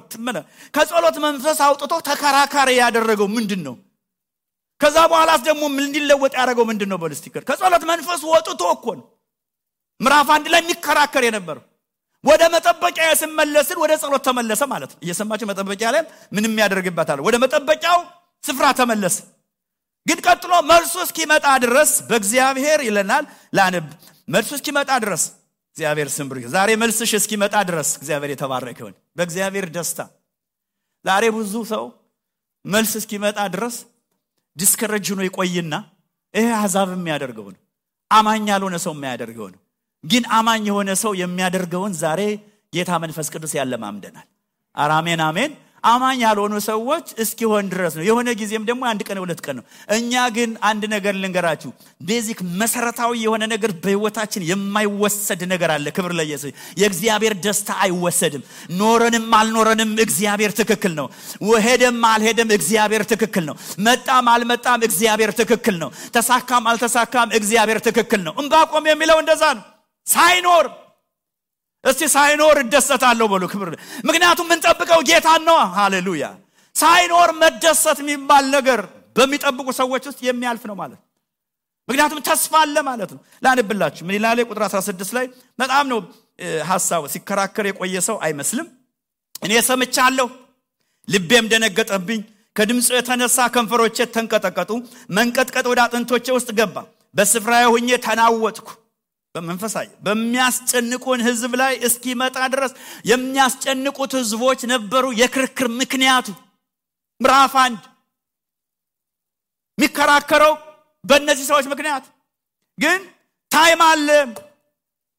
ከጸሎት መንፈስ አውጥቶ ተከራካሪ ያደረገው ምንድነው? ከዛ በኋላስ ደግሞ ምን እንዲለወጥ ያደረገው ምንድነው? በልስቲከር ከጸሎት መንፈስ ወጥቶ እኮ ነው ምዕራፍ 1 ላይ የሚከራከር የነበረው። ወደ መጠበቂያ ሲመለስን ወደ ጸሎት ተመለሰ ማለት ነው። እየሰማችሁ መጠበቂያ ላይ ምንም ያደርግበታል። ወደ መጠበቂያው ስፍራ ተመለሰ። ግን ቀጥሎ መልሱ እስኪመጣ ድረስ በእግዚአብሔር ይለናል። ላንብ መልሱ እስኪመጣ ድረስ እግዚአብሔር ስም ብሩክ። ዛሬ መልስሽ እስኪመጣ ድረስ እግዚአብሔር የተባረከ ይሁን። በእግዚአብሔር ደስታ ዛሬ ብዙ ሰው መልስ እስኪመጣ ድረስ ዲስከሬጅ ሆኖ ይቆይና ይሄ አዛብ የሚያደርገው ነው። አማኝ ያልሆነ ሰው የሚያደርገው ነው። ግን አማኝ የሆነ ሰው የሚያደርገውን ዛሬ ጌታ መንፈስ ቅዱስ ያለማምደናል። አሜን። አማኝ ያልሆኑ ሰዎች እስኪሆን ድረስ ነው። የሆነ ጊዜም ደግሞ አንድ ቀን ሁለት ቀን ነው። እኛ ግን አንድ ነገር ልንገራችሁ፣ ቤዚክ መሰረታዊ የሆነ ነገር በህይወታችን የማይወሰድ ነገር አለ። ክብር ለኢየሱስ። የእግዚአብሔር ደስታ አይወሰድም። ኖረንም አልኖረንም እግዚአብሔር ትክክል ነው። ወሄደም አልሄደም እግዚአብሔር ትክክል ነው። መጣም አልመጣም እግዚአብሔር ትክክል ነው። ተሳካም አልተሳካም እግዚአብሔር ትክክል ነው። ዕንባቆም የሚለው እንደዛ ነው። ሳይኖር እስቲ ሳይኖር እደሰታለሁ በሉ። ክብር ምክንያቱም ምን ጠብቀው ጌታን ነው። ሃሌሉያ። ሳይኖር መደሰት የሚባል ነገር በሚጠብቁ ሰዎች ውስጥ የሚያልፍ ነው ማለት። ምክንያቱም ተስፋ አለ ማለት ነው። ላንብላችሁ ምን ይላል ቁጥር 16 ላይ በጣም ነው ሐሳቡ። ሲከራከር የቆየ ሰው አይመስልም። እኔ ሰምቻለሁ፣ ልቤም ደነገጠብኝ፣ ከድምፁ የተነሳ ከንፈሮቼ ተንቀጠቀጡ፣ መንቀጥቀጥ ወደ አጥንቶቼ ውስጥ ገባ፣ በስፍራዬ ሆኜ ተናወጥኩ። በመንፈሳዊ በሚያስጨንቁን ህዝብ ላይ እስኪመጣ ድረስ የሚያስጨንቁት ህዝቦች ነበሩ። የክርክር ምክንያቱ ምዕራፍ 1 የሚከራከረው በእነዚህ ሰዎች ምክንያት ግን ታይም አለ።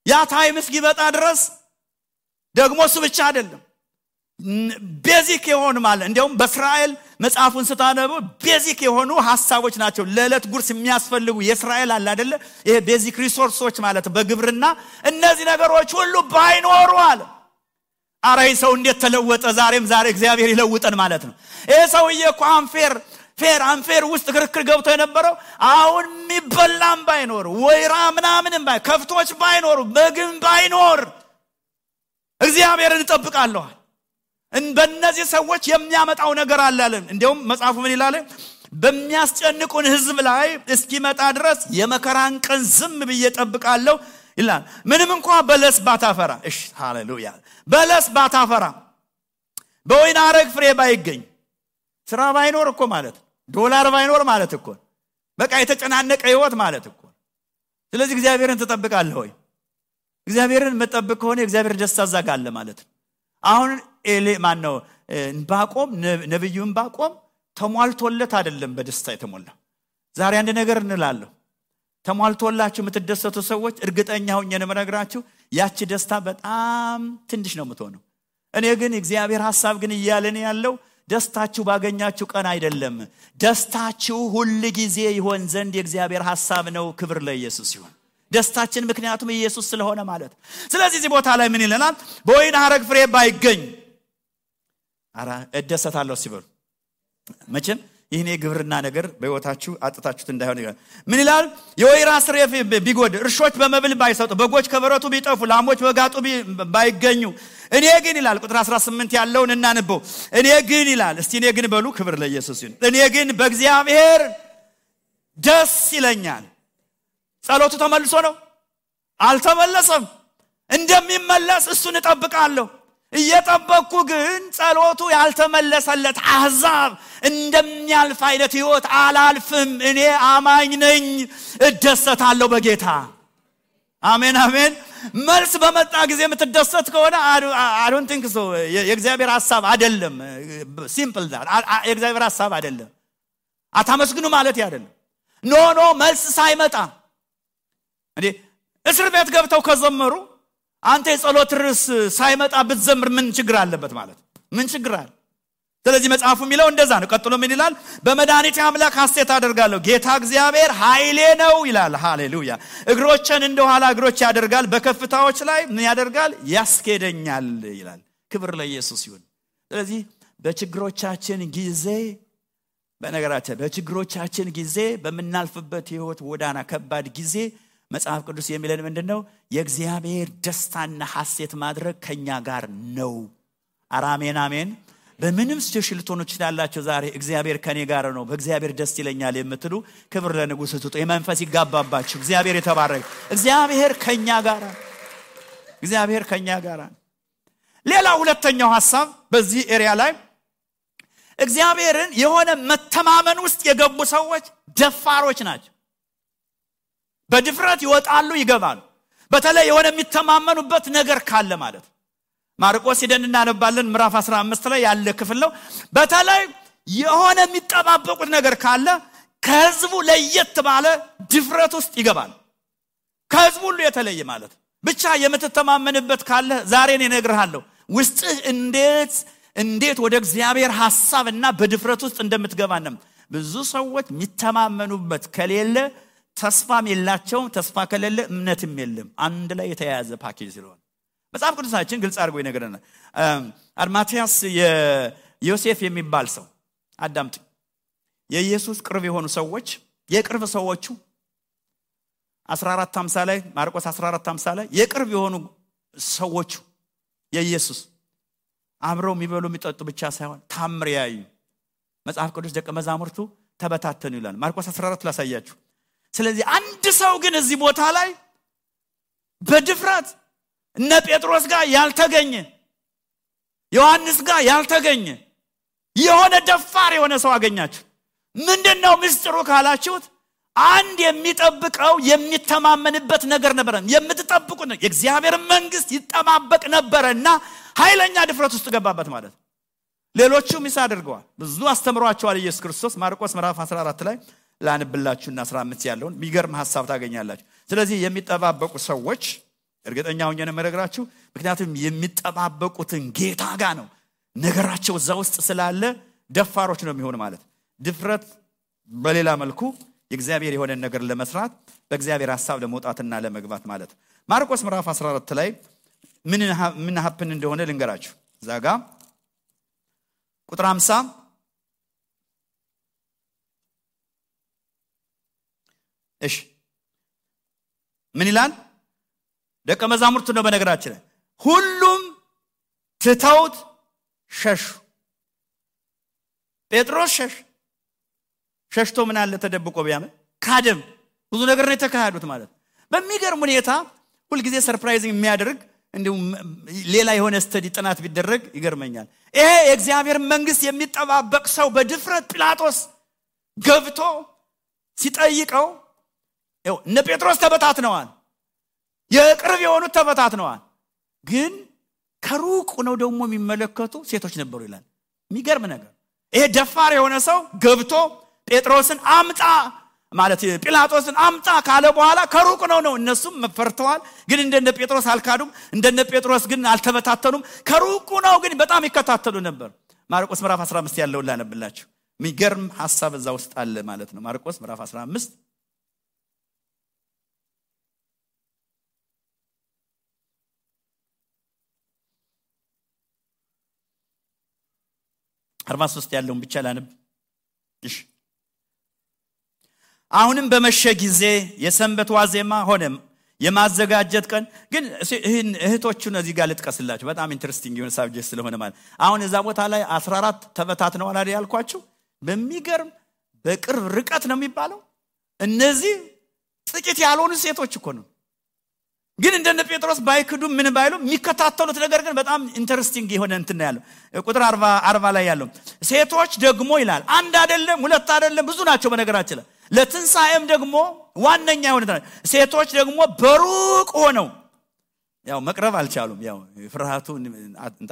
ያ ታይም እስኪመጣ ድረስ ደግሞ እሱ ብቻ አይደለም፣ ቤዚክ የሆኑ ማለት እንደውም በእስራኤል መጽሐፉን ስታነቡ ቤዚክ የሆኑ ሐሳቦች ናቸው። ለዕለት ጉርስ የሚያስፈልጉ የእስራኤል አለ አይደለ? ይሄ ቤዚክ ሪሶርሶች ማለት በግብርና እነዚህ ነገሮች ሁሉ ባይኖሩ አለ። አረ ሰው እንዴት ተለወጠ! ዛሬ እግዚአብሔር ይለውጠን ማለት ነው። ይሄ ሰውዬ እኮ አንፌር ውስጥ ክርክር ገብቶ የነበረው አሁን የሚበላም ባይኖር ወይራ ምናምንም ከፍቶች ባይኖሩ በግም ባይኖር እግዚአብሔርን እንጠብቃለሁ። በእነዚህ ሰዎች የሚያመጣው ነገር አለ አለ። እንደውም መጽሐፉ ምን ይላል? በሚያስጨንቁን ህዝብ ላይ እስኪመጣ ድረስ የመከራን ቀን ዝም ብዬ እጠብቃለሁ ይላል። ምንም እንኳን በለስ ባታፈራ፣ እሺ ሃሌሉያ፣ በለስ ባታፈራ፣ በወይን አረግ ፍሬ ባይገኝ፣ ስራ ባይኖር እኮ ማለት ዶላር ባይኖር ማለት እኮ በቃ የተጨናነቀ ህይወት ማለት እኮ። ስለዚህ እግዚአብሔርን ትጠብቃለህ ወይ? እግዚአብሔርን መጠበቅ ከሆነ እግዚአብሔር ደስታ ዘጋለ ማለት ነው። አሁን ማነው ዕንባቆም ነብዩ ዕንባቆም ተሟልቶለት አይደለም በደስታ የተሞላ። ዛሬ አንድ ነገር እንላለሁ፣ ተሟልቶላችሁ የምትደሰቱ ሰዎች እርግጠኛ ሆኜ ነው የምነግራችሁ ያቺ ደስታ በጣም ትንሽ ነው የምትሆነው። እኔ ግን እግዚአብሔር ሐሳብ ግን እያለን ያለው ደስታችሁ ባገኛችሁ ቀን አይደለም፣ ደስታችሁ ሁሉ ጊዜ ይሆን ዘንድ የእግዚአብሔር ሐሳብ ነው። ክብር ለኢየሱስ ይሁን። ደስታችን ምክንያቱም ኢየሱስ ስለሆነ ማለት። ስለዚህ እዚህ ቦታ ላይ ምን ይለናል? በወይን ሐረግ ፍሬ ባይገኝ አራ እደሰታለሁ ሲበሉ መቼም ይሄኔ ግብርና ነገር በህይወታችሁ አጥታችሁት እንዳይሆን ይላል። ምን ይላል? የወይራ ፍሬ ቢጎድ፣ እርሾች በመብል ባይሰጡ፣ በጎች ከበረቱ ቢጠፉ፣ ላሞች በጋጡ ባይገኙ፣ እኔ ግን ይላል ቁጥር 18 ያለውን እናንበው። እኔ ግን ይላል፣ እስቲ እኔ ግን በሉ። ክብር ለኢየሱስ ይሁን። እኔ ግን በእግዚአብሔር ደስ ይለኛል። ጸሎቱ ተመልሶ ነው? አልተመለሰም። እንደሚመለስ እሱን እጠብቃለሁ። እየጠበቅኩ ግን ጸሎቱ ያልተመለሰለት አሕዛብ እንደሚያልፍ አይነት ህይወት አላልፍም። እኔ አማኝ ነኝ፣ እደሰታለሁ በጌታ። አሜን አሜን። መልስ በመጣ ጊዜ የምትደሰት ከሆነ I don't think so። የእግዚአብሔር ሐሳብ አይደለም። ሲምፕል ዳት የእግዚአብሔር ሐሳብ አይደለም። አታመስግኑ ማለት አይደለም። ኖ መልስ ሳይመጣ እንዴ እስር ቤት ገብተው ከዘመሩ አንተ የጸሎት ርዕስ ሳይመጣ ብትዘምር ምን ችግር አለበት ማለት? ምን ችግር አለ? ስለዚህ መጽሐፉ የሚለው እንደዛ ነው። ቀጥሎ ምን ይላል? በመድኃኒቴ አምላክ ሐሴት አደርጋለሁ፣ ጌታ እግዚአብሔር ኃይሌ ነው ይላል። ሃሌሉያ። እግሮችን እንደ ኋላ እግሮች ያደርጋል፣ በከፍታዎች ላይ ምን ያደርጋል? ያስኬደኛል ይላል። ክብር ለኢየሱስ ይሁን። ስለዚህ በችግሮቻችን ጊዜ በችግሮቻችን ጊዜ በመናልፍበት ህይወት ወዳና ከባድ ጊዜ መጽሐፍ ቅዱስ የሚለን ምንድነው? የእግዚአብሔር ደስታና ሐሴት ማድረግ ከኛ ጋር ነው። አሜን አሜን። በምንም ሲቹዌሽን ልትሆኑ ትችላላችሁ። ዛሬ እግዚአብሔር ከኔ ጋር ነው፣ በእግዚአብሔር ደስ ይለኛል የምትሉ ክብር ለንጉሥ ስጡ። የመንፈስ ይጋባባችሁ። እግዚአብሔር የተባረከ። እግዚአብሔር ከኛ ጋር። ሌላ ሁለተኛው ሐሳብ በዚህ ኤሪያ ላይ እግዚአብሔርን የሆነ መተማመን ውስጥ የገቡ ሰዎች ደፋሮች ናቸው። በድፍረት ይወጣሉ ይገባሉ። በተለይ የሆነ የሚተማመኑበት ነገር ካለ ማለት ማርቆስ ሄደን እናነባለን። ምዕራፍ 15 ላይ ያለ ክፍል ነው። በተለይ የሆነ የሚጠባበቁት ነገር ካለ ከህዝቡ ለየት ባለ ድፍረት ውስጥ ይገባል። ከህዝቡ ሁሉ የተለየ ማለት ብቻ የምትተማመንበት ካለ ዛሬ እኔ እነግርሃለሁ ውስጥህ እንዴት እንዴት ወደ እግዚአብሔር ሐሳብና በድፍረት ውስጥ እንደምትገባንም ብዙ ሰዎች የሚተማመኑበት ከሌለ ተስፋም የላቸውም ተስፋ ከሌለ እምነትም የለም አንድ ላይ የተያያዘ ፓኬጅ ስለሆነ መጽሐፍ ቅዱሳችን ግልጽ አድርጎ ይነግረናል አርማቲያስ የዮሴፍ የሚባል ሰው አዳምጥ የኢየሱስ ቅርብ የሆኑ ሰዎች የቅርብ ሰዎቹ 14:50 ላይ ማርቆስ 14:50 ላይ የቅርብ የሆኑ ሰዎቹ የኢየሱስ አብረው የሚበሉ የሚጠጡ ብቻ ሳይሆን ታምር ያዩ መጽሐፍ ቅዱስ ደቀ መዛሙርቱ ተበታተኑ ይላል ማርቆስ 14 ላሳያችሁ ስለዚህ አንድ ሰው ግን እዚህ ቦታ ላይ በድፍረት እነ ጴጥሮስ ጋር ያልተገኘ ዮሐንስ ጋር ያልተገኘ የሆነ ደፋር የሆነ ሰው አገኛችሁ ምንድነው ምስጢሩ ካላችሁት አንድ የሚጠብቀው የሚተማመንበት ነገር ነበር የምትጠብቁት ነው የእግዚአብሔር መንግስት ይጠባበቅ ነበርና ኃይለኛ ድፍረት ውስጥ ገባበት ማለት ሌሎቹም ይሳደርገዋል ብዙ አስተምሯቸዋል ኢየሱስ ክርስቶስ ማርቆስ ምዕራፍ 14 ላይ ላንብላችሁና 15 ያለውን የሚገርም ሐሳብ ታገኛላችሁ ስለዚህ የሚጠባበቁ ሰዎች እርግጠኛ ሆኜ ነው መረግራችሁ ምክንያቱም የሚጠባበቁትን ጌታ ጋር ነው ነገራቸው እዛ ውስጥ ስላለ ደፋሮች ነው የሚሆን ማለት ድፍረት በሌላ መልኩ የእግዚአብሔር የሆነ ነገር ለመስራት በእግዚአብሔር ሐሳብ ለመውጣትና ለመግባት ማለት ማርቆስ ምዕራፍ 14 ላይ ምን ሀፕን እንደሆነ ልንገራችሁ ዛጋ ቁጥር 50 እሺ ምን ይላል ደቀ መዛሙርቱ ነው በነገራችን ሁሉም ትተውት ሸሹ ጴጥሮስ ሸሽቶ ምን አለ ተደብቆ ቢያመ ካደም ብዙ ነገር ነው የተካሄዱት ማለት በሚገርም ሁኔታ ሁሉ ጊዜ ሰርፕራይዚንግ የሚያደርግ እንደው ሌላ የሆነ ስተዲ ጥናት ቢደረግ ይገርመኛል ይሄ የእግዚአብሔር መንግስት የሚጠባበቅ ሰው በድፍረት ጲላጦስ ገብቶ ሲጠይቀው እነ ጴጥሮስ ተበታትነዋል የቅርብ የሆኑት ተበታትነዋል ግን ከሩቅ ነው ደግሞ የሚመለከቱ ሴቶች ነበሩ ይላል የሚገርም ነገር ይሄ ደፋር የሆነ ሰው ገብቶ ጴጥሮስን አምጣ ማለት ጲላጦስን አምጣ ካለ በኋላ ከሩቅ ነው እነሱም መፈርተዋል ግን እንደነ ጴጥሮስ አልካዱም እንደነ ጴጥሮስ ግን አልተበታተኑም ከሩቅ ነው ግን በጣም ይከታተሉ ነበር ማርቆስ ምዕራፍ 15 ያለው ላነብላችሁ የሚገርም ሐሳብ እዛ ውስጥ አለ ማለት ነው ማርቆስ ምዕራፍ 15 43 ያለውን ብቻ ላነብ እሺ አሁንም በመሸ ጊዜ የሰንበት ዋዜማ ሆነ የማዘጋጀት ቀን ግን እህቶቹን እዚህ ጋር ልጥቀስላችሁ በጣም ኢንተረስቲንግ የሆነ ሳብጀክት ስለሆነ ማለት አሁን እዛ ቦታ ላይ 14 ተበታትነዋል አይደል ያልኳችሁ በሚገርም በቅርብ ርቀት ነው የሚባለው እነዚህ ጥቂት ያልሆኑ ሴቶች እኮ ነው ግን እንደነ ጴጥሮስ ባይክዱ ምን ባይሉ የሚከታተሉት ነገር ግን በጣም ኢንተረስቲንግ የሆነ እንትን ያለው ቁጥር 40 ላይ ያለው ሴቶች ደግሞ ይላል አንድ አይደለም ሁለት አይደለም ብዙ ናቸው በነገራችን ላይ ለትንሳኤም ደግሞ ዋነኛ የሆነ ሴቶች ደግሞ በሩቅ ሆነው ያው መቅረብ አልቻሉም ያው ፍርሃቱ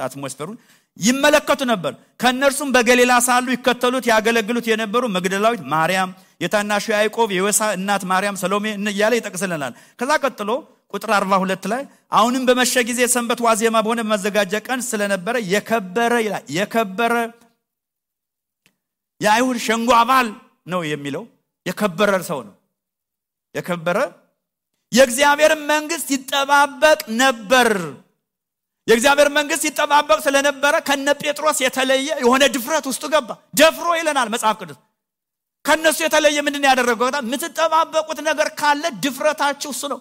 አትሞስፈሩን ይመለከቱ ነበር ከነርሱም በገሊላ ሳሉ ይከተሉት ያገለግሉት የነበሩ መግደላዊት ማርያም የታናሹ ያዕቆብ የዮሳ እናት ማርያም ሰሎሜ እያለ ይጠቅስልናል ከዛ ቀጥሎ ቁጥር 42 ላይ አሁንም በመሸ ጊዜ ሰንበት ዋዜማ በሆነ መዘጋጃ ቀን ስለነበረ የከበረ ይላል የከበረ የአይሁድ ሸንጎ አባል ነው የሚለው የከበረ ሰው ነው የከበረ የእግዚአብሔር መንግስት ይጠባበቅ ነበር የእግዚአብሔር መንግስት ይጠባበቅ ስለነበረ ከነ ጴጥሮስ የተለየ የሆነ ድፍረት ውስጥ ገባ ደፍሮ ይለናል መጽሐፍ ቅዱስ ከነሱ የተለየ ምንድነው ያደረገው ምትጠባበቁት ነገር ካለ ድፍረታችሁ እሱ ነው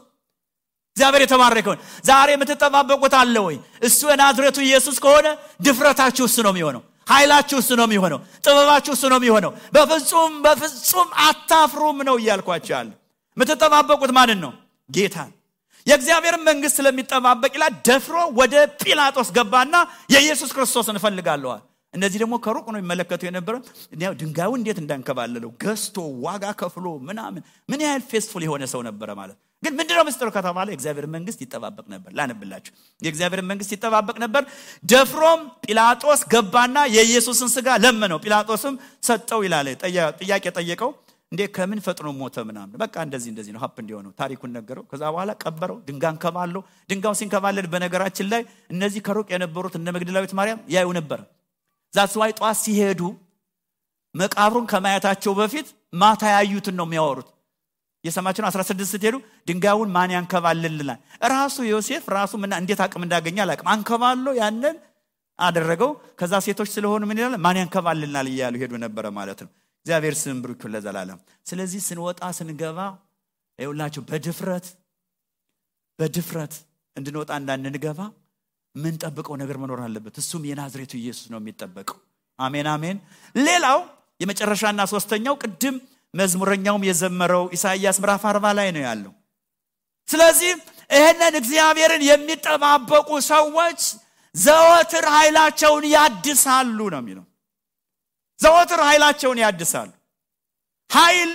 እግዚአብሔር የተባረከው ዛሬ ምትጠባበቁት አለ ወይ እሱ የናዝሬቱ ኢየሱስ ከሆነ ድፍረታችሁ እሱ ነው የሚሆነው ኃይላችሁ እሱ ነው የሚሆነው ጥበባችሁ እሱ ነው የሚሆነው በፍጹም አታፍሩም ነው ይያልኳችሁ ያለ ምትጠባበቁት ማንን ነው ጌታን የእግዚአብሔር መንግስት ስለሚጠባበቅ ይላል ደፍሮ ወደ ጲላጦስ ገባና የኢየሱስ ክርስቶስን ፈልጋለሁ እነዚህ ደግሞ ከሩቅ ነው የሚመለከቱ የነበረው ያው ድንጋዩ እንዴት እንዳንከባለለው ገስቶ ዋጋ ከፍሎ ምን ያህል ፌስፉል የሆነ ሰው ነበር ማለት ግን ምንድነው ምስጢሩ ከተባለ የእግዚአብሔር መንግስት ይጠባበቅ ነበር ላነብላችሁ የእግዚአብሔር መንግስት ይጠባበቅ ነበር ደፍሮም ጲላጦስ ገባና የኢየሱስን ስጋ ለመነው ጲላጦስም ሰጠው ይላል ጥያቄ ጠየቀው እንዴ ከምን ፈጥኖ ሞተ ምናምን በቃ እንደዚህ ነው ሀፕ እንዲሆነው ታሪኩን ነገረው ከዛ በኋላ ቀበረው ድንጋን ከባለው ድንጋው ሲንከባለል በነገራችን ላይ እነዚህ ከሩቅ የነበሩት እነ መግደላዊት ማርያም ያዩ ነበር ዛትስ ዋይ ጧት ሲሄዱ መቃብሩን ከማየታቸው በፊት ማታ ያዩትን ነው የሚያወሩት። የሰማችሁ 16 ስትሄዱ ድንጋዩን ማን ያንከባልልናል? ራሱ ዮሴፍ ራሱ እንዴት አቅም እንዳገኘ አላቅም አንከባሎ ያንን አደረገው። ከዛ ሴቶች ስለሆኑ ምን ይላል? ማን ያንከባልልናል እያሉ ሄዱ ነበር ማለት ነው። እግዚአብሔር ስም ብሩክ ይሁን ለዘላለም። ስለዚህ ስንወጣ ስንገባ ይኸውላችሁ በድፍረት እንድንወጣ እንዳንገባ ምን ጠብቀው ነገር መኖር አለበት። እሱም የናዝሬቱ ኢየሱስ ነው የሚጠበቀው። አሜን አሜን። ሌላው የመጨረሻና ሶስተኛው ቅድም መዝሙረኛውም የዘመረው ኢሳይያስ ምዕራፍ 40 ላይ ነው ያለው። ስለዚህ ይሄንን እግዚአብሔርን የሚጠባበቁ ሰዎች ዘወትር ኃይላቸውን ያድሳሉ ነው የሚለው። ዘወትር ኃይላቸውን ያድሳሉ። ኃይል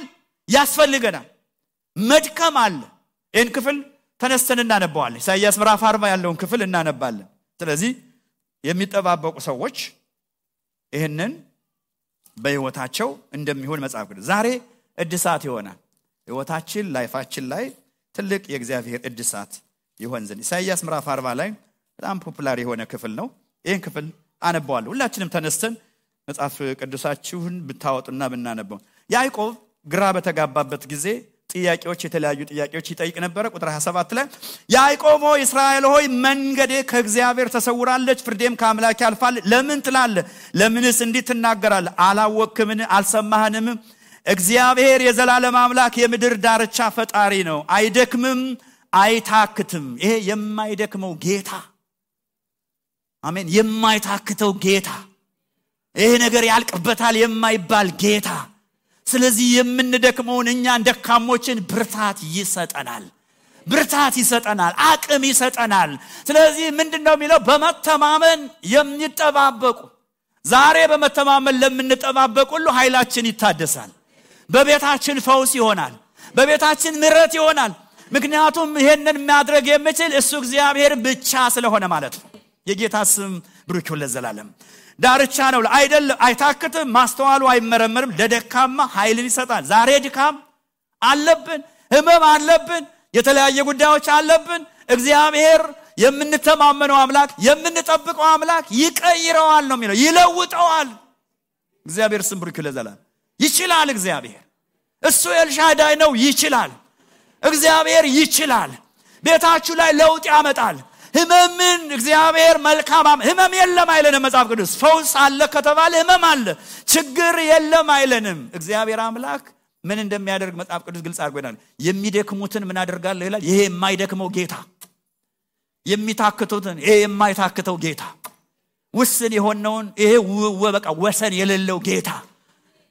ያስፈልገናል። መድከም አለ። ይህን ክፍል ተነስተን እናነባዋለን። ኢሳይያስ ምዕራፍ 40 ያለውን ክፍል እናነባለን። ስለዚህ የሚጠባበቁ ሰዎች ይሄንን በህይወታቸው እንደሚሆን መጽሐፍ ቅዱስ ዛሬ እድሳት ይሆናል። ህይወታችን ላይፋችን ላይ ትልቅ የእግዚአብሔር እድሳት ይሆን ዘንድ ኢሳይያስ ምዕራፍ 40 ላይ በጣም ፖፑላር የሆነ ክፍል ነው። ይሄን ክፍል አነባዋለሁ። ሁላችንም ተነስተን መጽሐፍ ቅዱሳችሁን ብታወጡና ብናነበው። ያዕቆብ ግራ በተጋባበት ጊዜ የተለያዩ ጥያቄዎች ይጠይቅ ነበር። ቁጥር 27 ላይ ያዕቆብ ሆይ እስራኤል ሆይ መንገዴ ከእግዚአብሔር ተሰውራለች፣ ፍርዴም ከአምላኬ አልፋል ለምን ትላለህ? ለምንስ እንዲህ ትናገራለህ? አላወቅህምን? አልሰማህንም? እግዚአብሔር የዘላለም አምላክ የምድር ዳርቻ ፈጣሪ ነው፣ አይደክምም አይታክትም። ይሄ የማይደክመው ጌታ፣ አሜን፣ የማይታክተው ጌታ፣ ይሄ ነገር ያልቅበታል የማይባል ጌታ። ስለዚህ የምንደክመውን እኛን ደካሞችን ብርታት ይሰጠናል፣ አቅም ይሰጠናል። ስለዚህ ምንድነው የሚለው? በመተማመን የሚጠባበቁ። ዛሬ በመተማመን ለምንጠባበቁ ሁሉ ኃይላችን ይታደሳል። በቤታችን ፈውስ ይሆናል፣ በቤታችን ምሕረት ይሆናል። ምክንያቱም ይሄንን ማድረግ የሚችል እሱ እግዚአብሔር ብቻ ስለሆነ ማለት ነው። የጌታ ስም ብሩክ ይሁን ለዘላለም። ዳርቻ ነው አይደለም፣ አይታክትም፣ ማስተዋሉ አይመረመርም፣ ለደካማ ኃይልን ይሰጣል። ዛሬ ድካም አለብን፣ ህመም አለብን፣ የተለያየ ጉዳዮች አለብን። እግዚአብሔር የምንተማመነው አምላክ የምንጠብቀው አምላክ ይቀይረዋል ነው የሚለው፣ ይለውጠዋል። እግዚአብሔር ስም ብሩክ ይሁን ለዘላለም። ይችላል እግዚአብሔር። እሱ ኤልሻዳይ ነው፣ ይችላል። እግዚአብሔር ይችላል። ቤታችሁ ላይ ለውጥ ያመጣል። ህመምን እግዚአብሔር መልካም ህመም የለም አይለንም መጽሐፍ ቅዱስ። ፈውስ አለ ከተባለ ህመም አለ፣ ችግር የለም አይለንም። እግዚአብሔር አምላክ ምን እንደሚያደርግ መጽሐፍ ቅዱስ ግልጽ አድርጎናል። የሚደክሙትን ምን አደርጋለሁ ይላል። ይሄ የማይደክመው ጌታ፣ የሚታክቱትን ይሄ የማይታክተው ጌታ፣ ውስን የሆነውን ይሄ በቃ ወሰን የሌለው ጌታ፣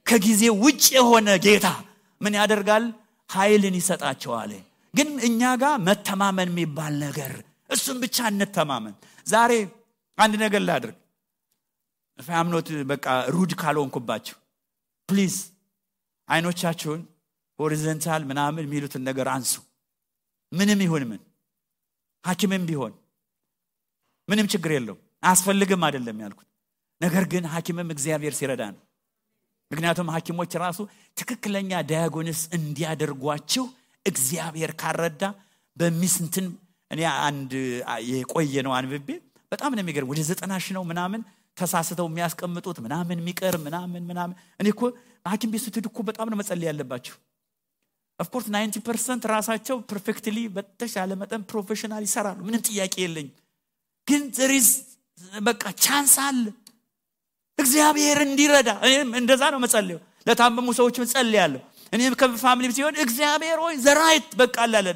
ከጊዜ ውጭ የሆነ ጌታ ምን ያደርጋል? ኃይልን ይሰጣቸዋል። ግን እኛ ጋር መተማመን የሚባል ነገር፣ እሱን ብቻ እንተማመን። ዛሬ አንድ ነገር ላድርግ፣ ፋምኖት በቃ ሩድ ካልሆንኩባችሁ ፕሊዝ አይኖቻችሁን ሆሪዞንታል ምናምን የሚሉትን ነገር አንሱ። ምንም ይሁን ምን፣ ሐኪምም ቢሆን ምንም ችግር የለው፣ አያስፈልግም አይደለም ያልኩት። ነገር ግን ሐኪምም እግዚአብሔር ሲረዳ ነው። ምክንያቱም ሐኪሞች ራሱ ትክክለኛ ዳያግኖስ እንዲያደርጓችሁ እግዚአብሔር ካረዳ በሚስንትን እኔ አንድ የቆየ ነው አንብቤ በጣም ነው የሚገርም። ወደ 90 ነው ምናምን ተሳስተው የሚያስቀምጡት ምናምን የሚቀር ምናምን እኔ እኮ ሐኪም ቤት ስትሄዱ እኮ በጣም ነው መጸለይ ያለባችሁ። ኦፍ ኮርስ 90% ራሳቸው ፐርፌክትሊ በተሻለ መጠን ፕሮፌሽናል ይሰራሉ፣ ምንም ጥያቄ የለኝ። ግን there is በቃ ቻንስ አለ እግዚአብሔር እንዲረዳ። እኔም እንደዛ ነው መጸለየው፣ ለታመሙ ሰዎች መጸለያለሁ። እኔም ከፋሚሊ ሲሆን እግዚአብሔር ሆይ ዘራይት በቃ አላለ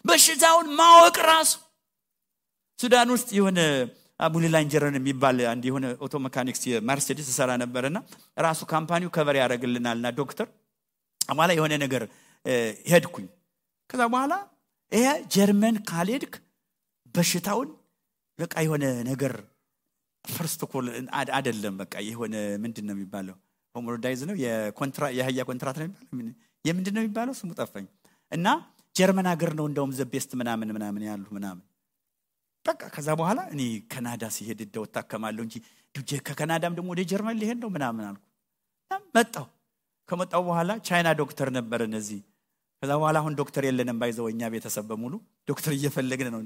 በሽታውን ማወቅ ራሱ። ሱዳን ውስጥ የሆነ አቡሊላንጀረን የሚባል አንድ የሆነ ኦቶ ሜካኒክስ የመርሴዲስ ሰራ ነበርና ራሱ ካምፓኒው ከቨር ያደርግልናልና ዶክተር አማላ የሆነ ነገር ሄድኩኝ። ከዛ በኋላ ይሄ ጀርመን ካልሄድክ በሽታውን በቃ የሆነ ነገር ፈርስት ኮል አይደለም በቃ የሆነ ምንድነው የሚባለው ሆሞሮዳይዝ ነው የሀያ ኮንትራት ነው የሚባለው የምንድነው የሚባለው ስሙ ጠፋኝ። እና ጀርመን ሀገር ነው እንደውም ዘቤስት ምናምን ያሉ ምናምን በቃ። ከዛ በኋላ እኔ ካናዳ ሲሄድ ደው ታከማለሁ እንጂ ከካናዳም ደግሞ ወደ ጀርመን ሊሄድ ነው ምናምን አልኩ። ከመጣው በኋላ ቻይና ዶክተር ነበር እነዚህ። ከዛ በኋላ አሁን ዶክተር የለንም ባይዘውኛ ቤተሰብ በሙሉ ዶክተር እየፈለግን ነው፣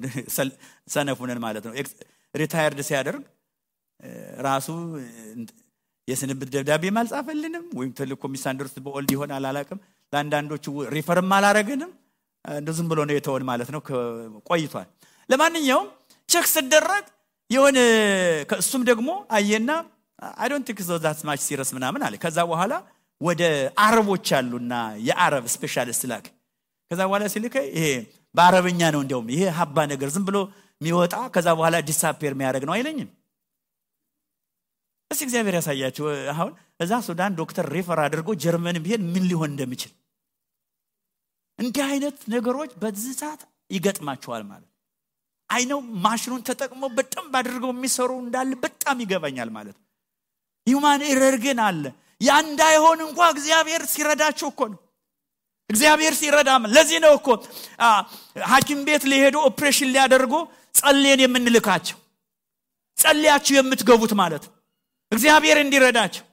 ሰነፉነን ማለት ነው። ሪታየርድ ሲያደርግ ራሱ የስንብት ደብዳቤ ማልጻፈልንም ወይም ተልኮ ሚሳንደርስ በኦልድ ይሆናል አላቀም ለአንዳንዶቹ ሪፈርም አላረገንም እንደዝም ብሎ ነው የተወን ማለት ነው ቆይቷል ለማንኛውም ቼክ ሲደረግ የሆነ ከሱም ደግሞ አየና I don't think so that's much serious ምናምን አለ ከዛ በኋላ ወደ አረቦች አሉና የአረብ ስፔሻሊስት ላክ ከዛ በኋላ ሲልከ ይሄ በአረብኛ ነው እንደውም ይሄ ሀባ ነገር ዝም ብሎ የሚወጣ ከዛ በኋላ ዲሳፒር የሚያደርግ ነው አይለኝም እሺ እግዚአብሔር ያሳያችሁ አሁን እዛ ሱዳን ዶክተር ሪፈር አድርጎ ጀርመን ቢሄድ ምን ሊሆን እንደሚችል እንዲህ አይነት ነገሮች በዚህ ሰዓት ይገጥማቸዋል ማለት አይነው ማሽኑን ተጠቅመው በጣም ባድርገው የሚሰሩ እንዳለ በጣም ይገባኛል ማለት ሂዩማን ኤረር ግን አለ ያ እንዳይሆን እንኳን እግዚአብሔር ሲረዳቸው እኮ ነው እግዚአብሔር ሲረዳም ለዚህ ነው እኮ ሐኪም ቤት ሊሄዱ ኦፕሬሽን ሊያደርጉ ጸልየን የምንልካቸው ጸልያችሁ የምትገቡት ማለት እግዚአብሔር እንዲረዳቸው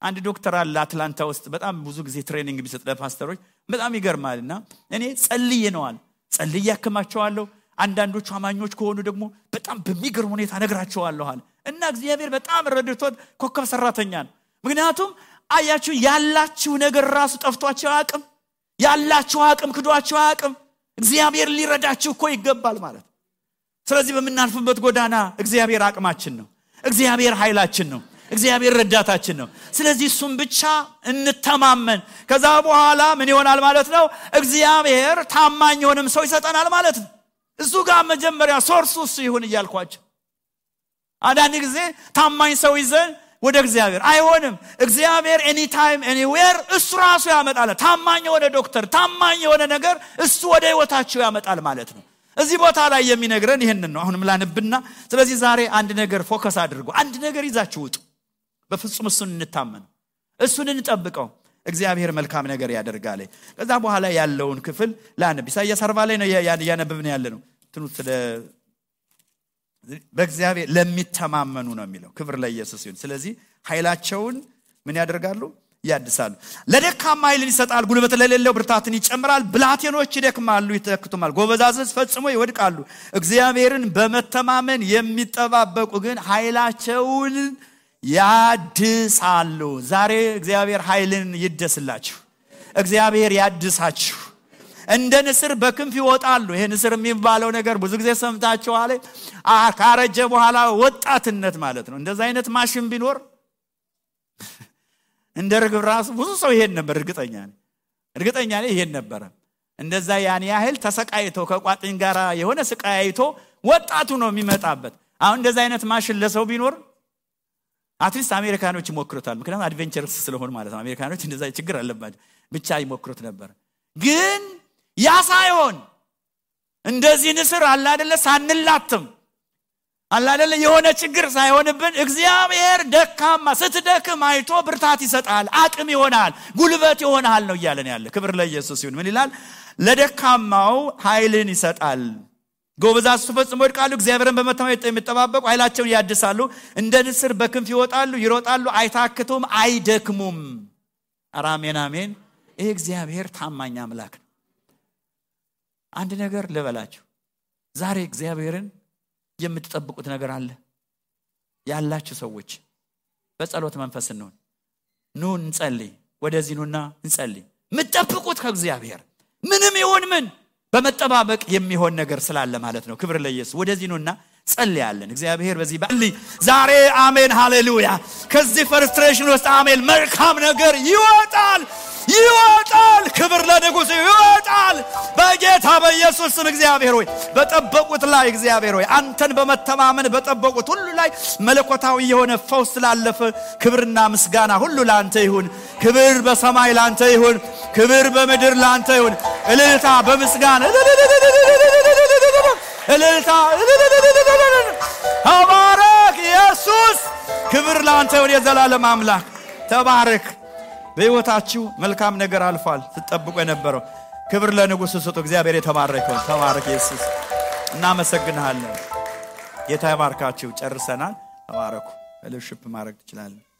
አንድ ዶክተር አለ አትላንታ ውስጥ በጣም ብዙ ጊዜ ትሬኒንግ ቢሰጥ ለፓስተሮች በጣም ይገርማልና እኔ ጸልዬ ነዋል ጸልዬ ያከማቸዋለሁ አንዳንዶቹ አማኞች ከሆኑ ደግሞ በጣም በሚገርም ሁኔታ ነግራቸዋለሁ አለ እና እግዚአብሔር በጣም ረድቶት ኮከብ ሰራተኛ ነው ምክንያቱም አያችሁ ያላችሁ ነገር ራሱ ጠፍቷቸው አቅም ያላችሁ አቅም ክዷቸው አቅም እግዚአብሔር ሊረዳችሁ እኮ ይገባል ማለት ስለዚህ በመናልፍበት ጎዳና እግዚአብሔር አቅማችን ነው እግዚአብሔር ኃይላችን ነው እግዚአብሔር ረዳታችን ነው ስለዚህ እሱም ብቻ እንተማመን ከዛ በኋላ ምን ይሆናል ማለት ነው እግዚአብሔር ታማኝ ሆነም ሰው ይሰጠናል ማለት ነው እሱ ጋር መጀመሪያ ሶርሱስ ይሁን ይያልኳችሁ አንዳንድ ጊዜ ታማኝ ሰው ይዘን ወደ እግዚአብሔር አይሆንም እግዚአብሔር any time anywhere እሱ ራሱ ያመጣል ታማኝ የሆነ ዶክተር ታማኝ የሆነ ነገር እሱ ወደ ህይወታችሁ ያመጣል ማለት ነው እዚህ ቦታ ላይ የሚነግረን ይሄንን ነው አሁንም ላንብና ስለዚህ ዛሬ አንድ ነገር ፎከስ አድርጉ አንድ ነገር ይዛችሁ ውጡ በፍጹም እሱን እንታመን እሱን እንጠብቀው እግዚአብሔር መልካም ነገር ያደርጋል ከዛ በኋላ ያለውን ክፍል ላንብ ኢሳይያስ 40 ላይ ነው ያነበብን ያለነው ትኑት በእግዚአብሔር ለሚተማመኑ ነው የሚለው ክብር ለኢየሱስ ይሁን ስለዚህ ኃይላቸውን ምን ያደርጋሉ ያድሳሉ ለደካማ ኃይልን ይሰጣል ጉልበት ለሌለው ብርታትን ይጨምራል ብላቴኖች ይደክማሉ ይተክቱማል ጎበዛዝት ፈጽሞ ይወድቃሉ እግዚአብሔርን በመተማመን የሚጠባበቁ ግን ኃይላቸውን ያድሳሉ ዛሬ እግዚአብሔር ኃይልን ይደስላችሁ እግዚአብሔር ያድሳችሁ እንደ ንስር በክንፍ ይወጣሉ ይሄ ንስር የሚባለው ነገር ብዙ ጊዜ ሰምታችኋል ካረጀ በኋላ ወጣትነት ማለት ነው እንደዛ አይነት ማሽን ቢኖር እንደ ርግብ ራሱ ብዙ ሰው ይሄን ነበር እርግጠኛ ነኝ ይሄን ነበር እንደዛ ያን ያህል ተሰቃይቶ ከቋጥኝ ጋራ የሆነ ስቃይቶ ወጣቱ ነው የሚመጣበት አሁን እንደዛ አይነት ማሽን ለሰው ቢኖር አትሊስት አሜሪካኖች ይሞክሩታል ምክንያቱም አድቬንቸርስ ስለሆነ ማለት ነው አሜሪካኖች እንደዛ ችግር አለባቸው ብቻ ይሞክሩት ነበር ግን ያ ሳይሆን እንደዚህ ንስር አለ አይደለ ሳንላትም አለ አይደለ የሆነ ችግር ሳይሆንብን እግዚአብሔር ደካማ ስትደክም አይቶ ብርታት ይሰጣል አቅም ይሆናል ጉልበት ይሆናል ነው ይያለን ያለ ክብር ለኢየሱስ ይሁን ምን ይላል ለደካማው ኃይልን ይሰጣል ጎበዛዝት ፈጽሞ ይወድቃሉ እግዚአብሔርን በመተማመን የሚጠባበቁ ኃይላቸውን ያድሳሉ እንደ ንስር በክንፍ ይወጣሉ ይሮጣሉ አይታክቱም አይደክሙም አሜን አሜን ይሄ እግዚአብሔር ታማኝ አምላክ አንድ ነገር ልበላችሁ ዛሬ እግዚአብሔርን የምትጠብቁት ነገር አለ ያላችሁ ሰዎች በጸሎት መንፈስ ነው ኑ እንጸልይ ወደዚህ ኑና እንጸልይ ምትጠብቁት ከእግዚአብሔር ምንም ይሁን ምን በመጠባበቅ የሚሆን ነገር ስላለ ማለት ነው ክብር ለኢየሱስ ወደዚህ ኑና ጸልያለን እግዚአብሔር በዚህ ባሊ ዛሬ አሜን ሃሌሉያ ከዚህ ፍርስትሬሽን ውስጥ አሜን መልካም ነገር ይወጣል ክብር ለንጉሥ ይወጣል በጌታ በኢየሱስ ስም እግዚአብሔር ሆይ በጠበቁት ላይ እግዚአብሔር ሆይ አንተን በመተማመን በጠበቁት ሁሉ ላይ መለኮታዊ የሆነ ፈውስ ስላለፈ ክብርና ምስጋና ሁሉ ላንተ ይሁን ክብር በሰማይ ላንተ ይሁን ክብር በምድር ላንተ ይሁን እልልታ በምስጋና እልልታ ተባረክ ኢየሱስ ክብር ላንተ ይሁን የዘላለም አምላክ ተባረክ በህይወታችሁ መልካም ነገር አልፏል ተጠብቆ የነበረው ክብር ለንጉሥ ስጡ እግዚአብሔር የተባረከው ተባረክ ኢየሱስ እናመሰግናለን ጌታ ይባርካችሁ ጨርሰናል ተባረኩ ፌሎሺፕ ማድረግ ትችላላችሁ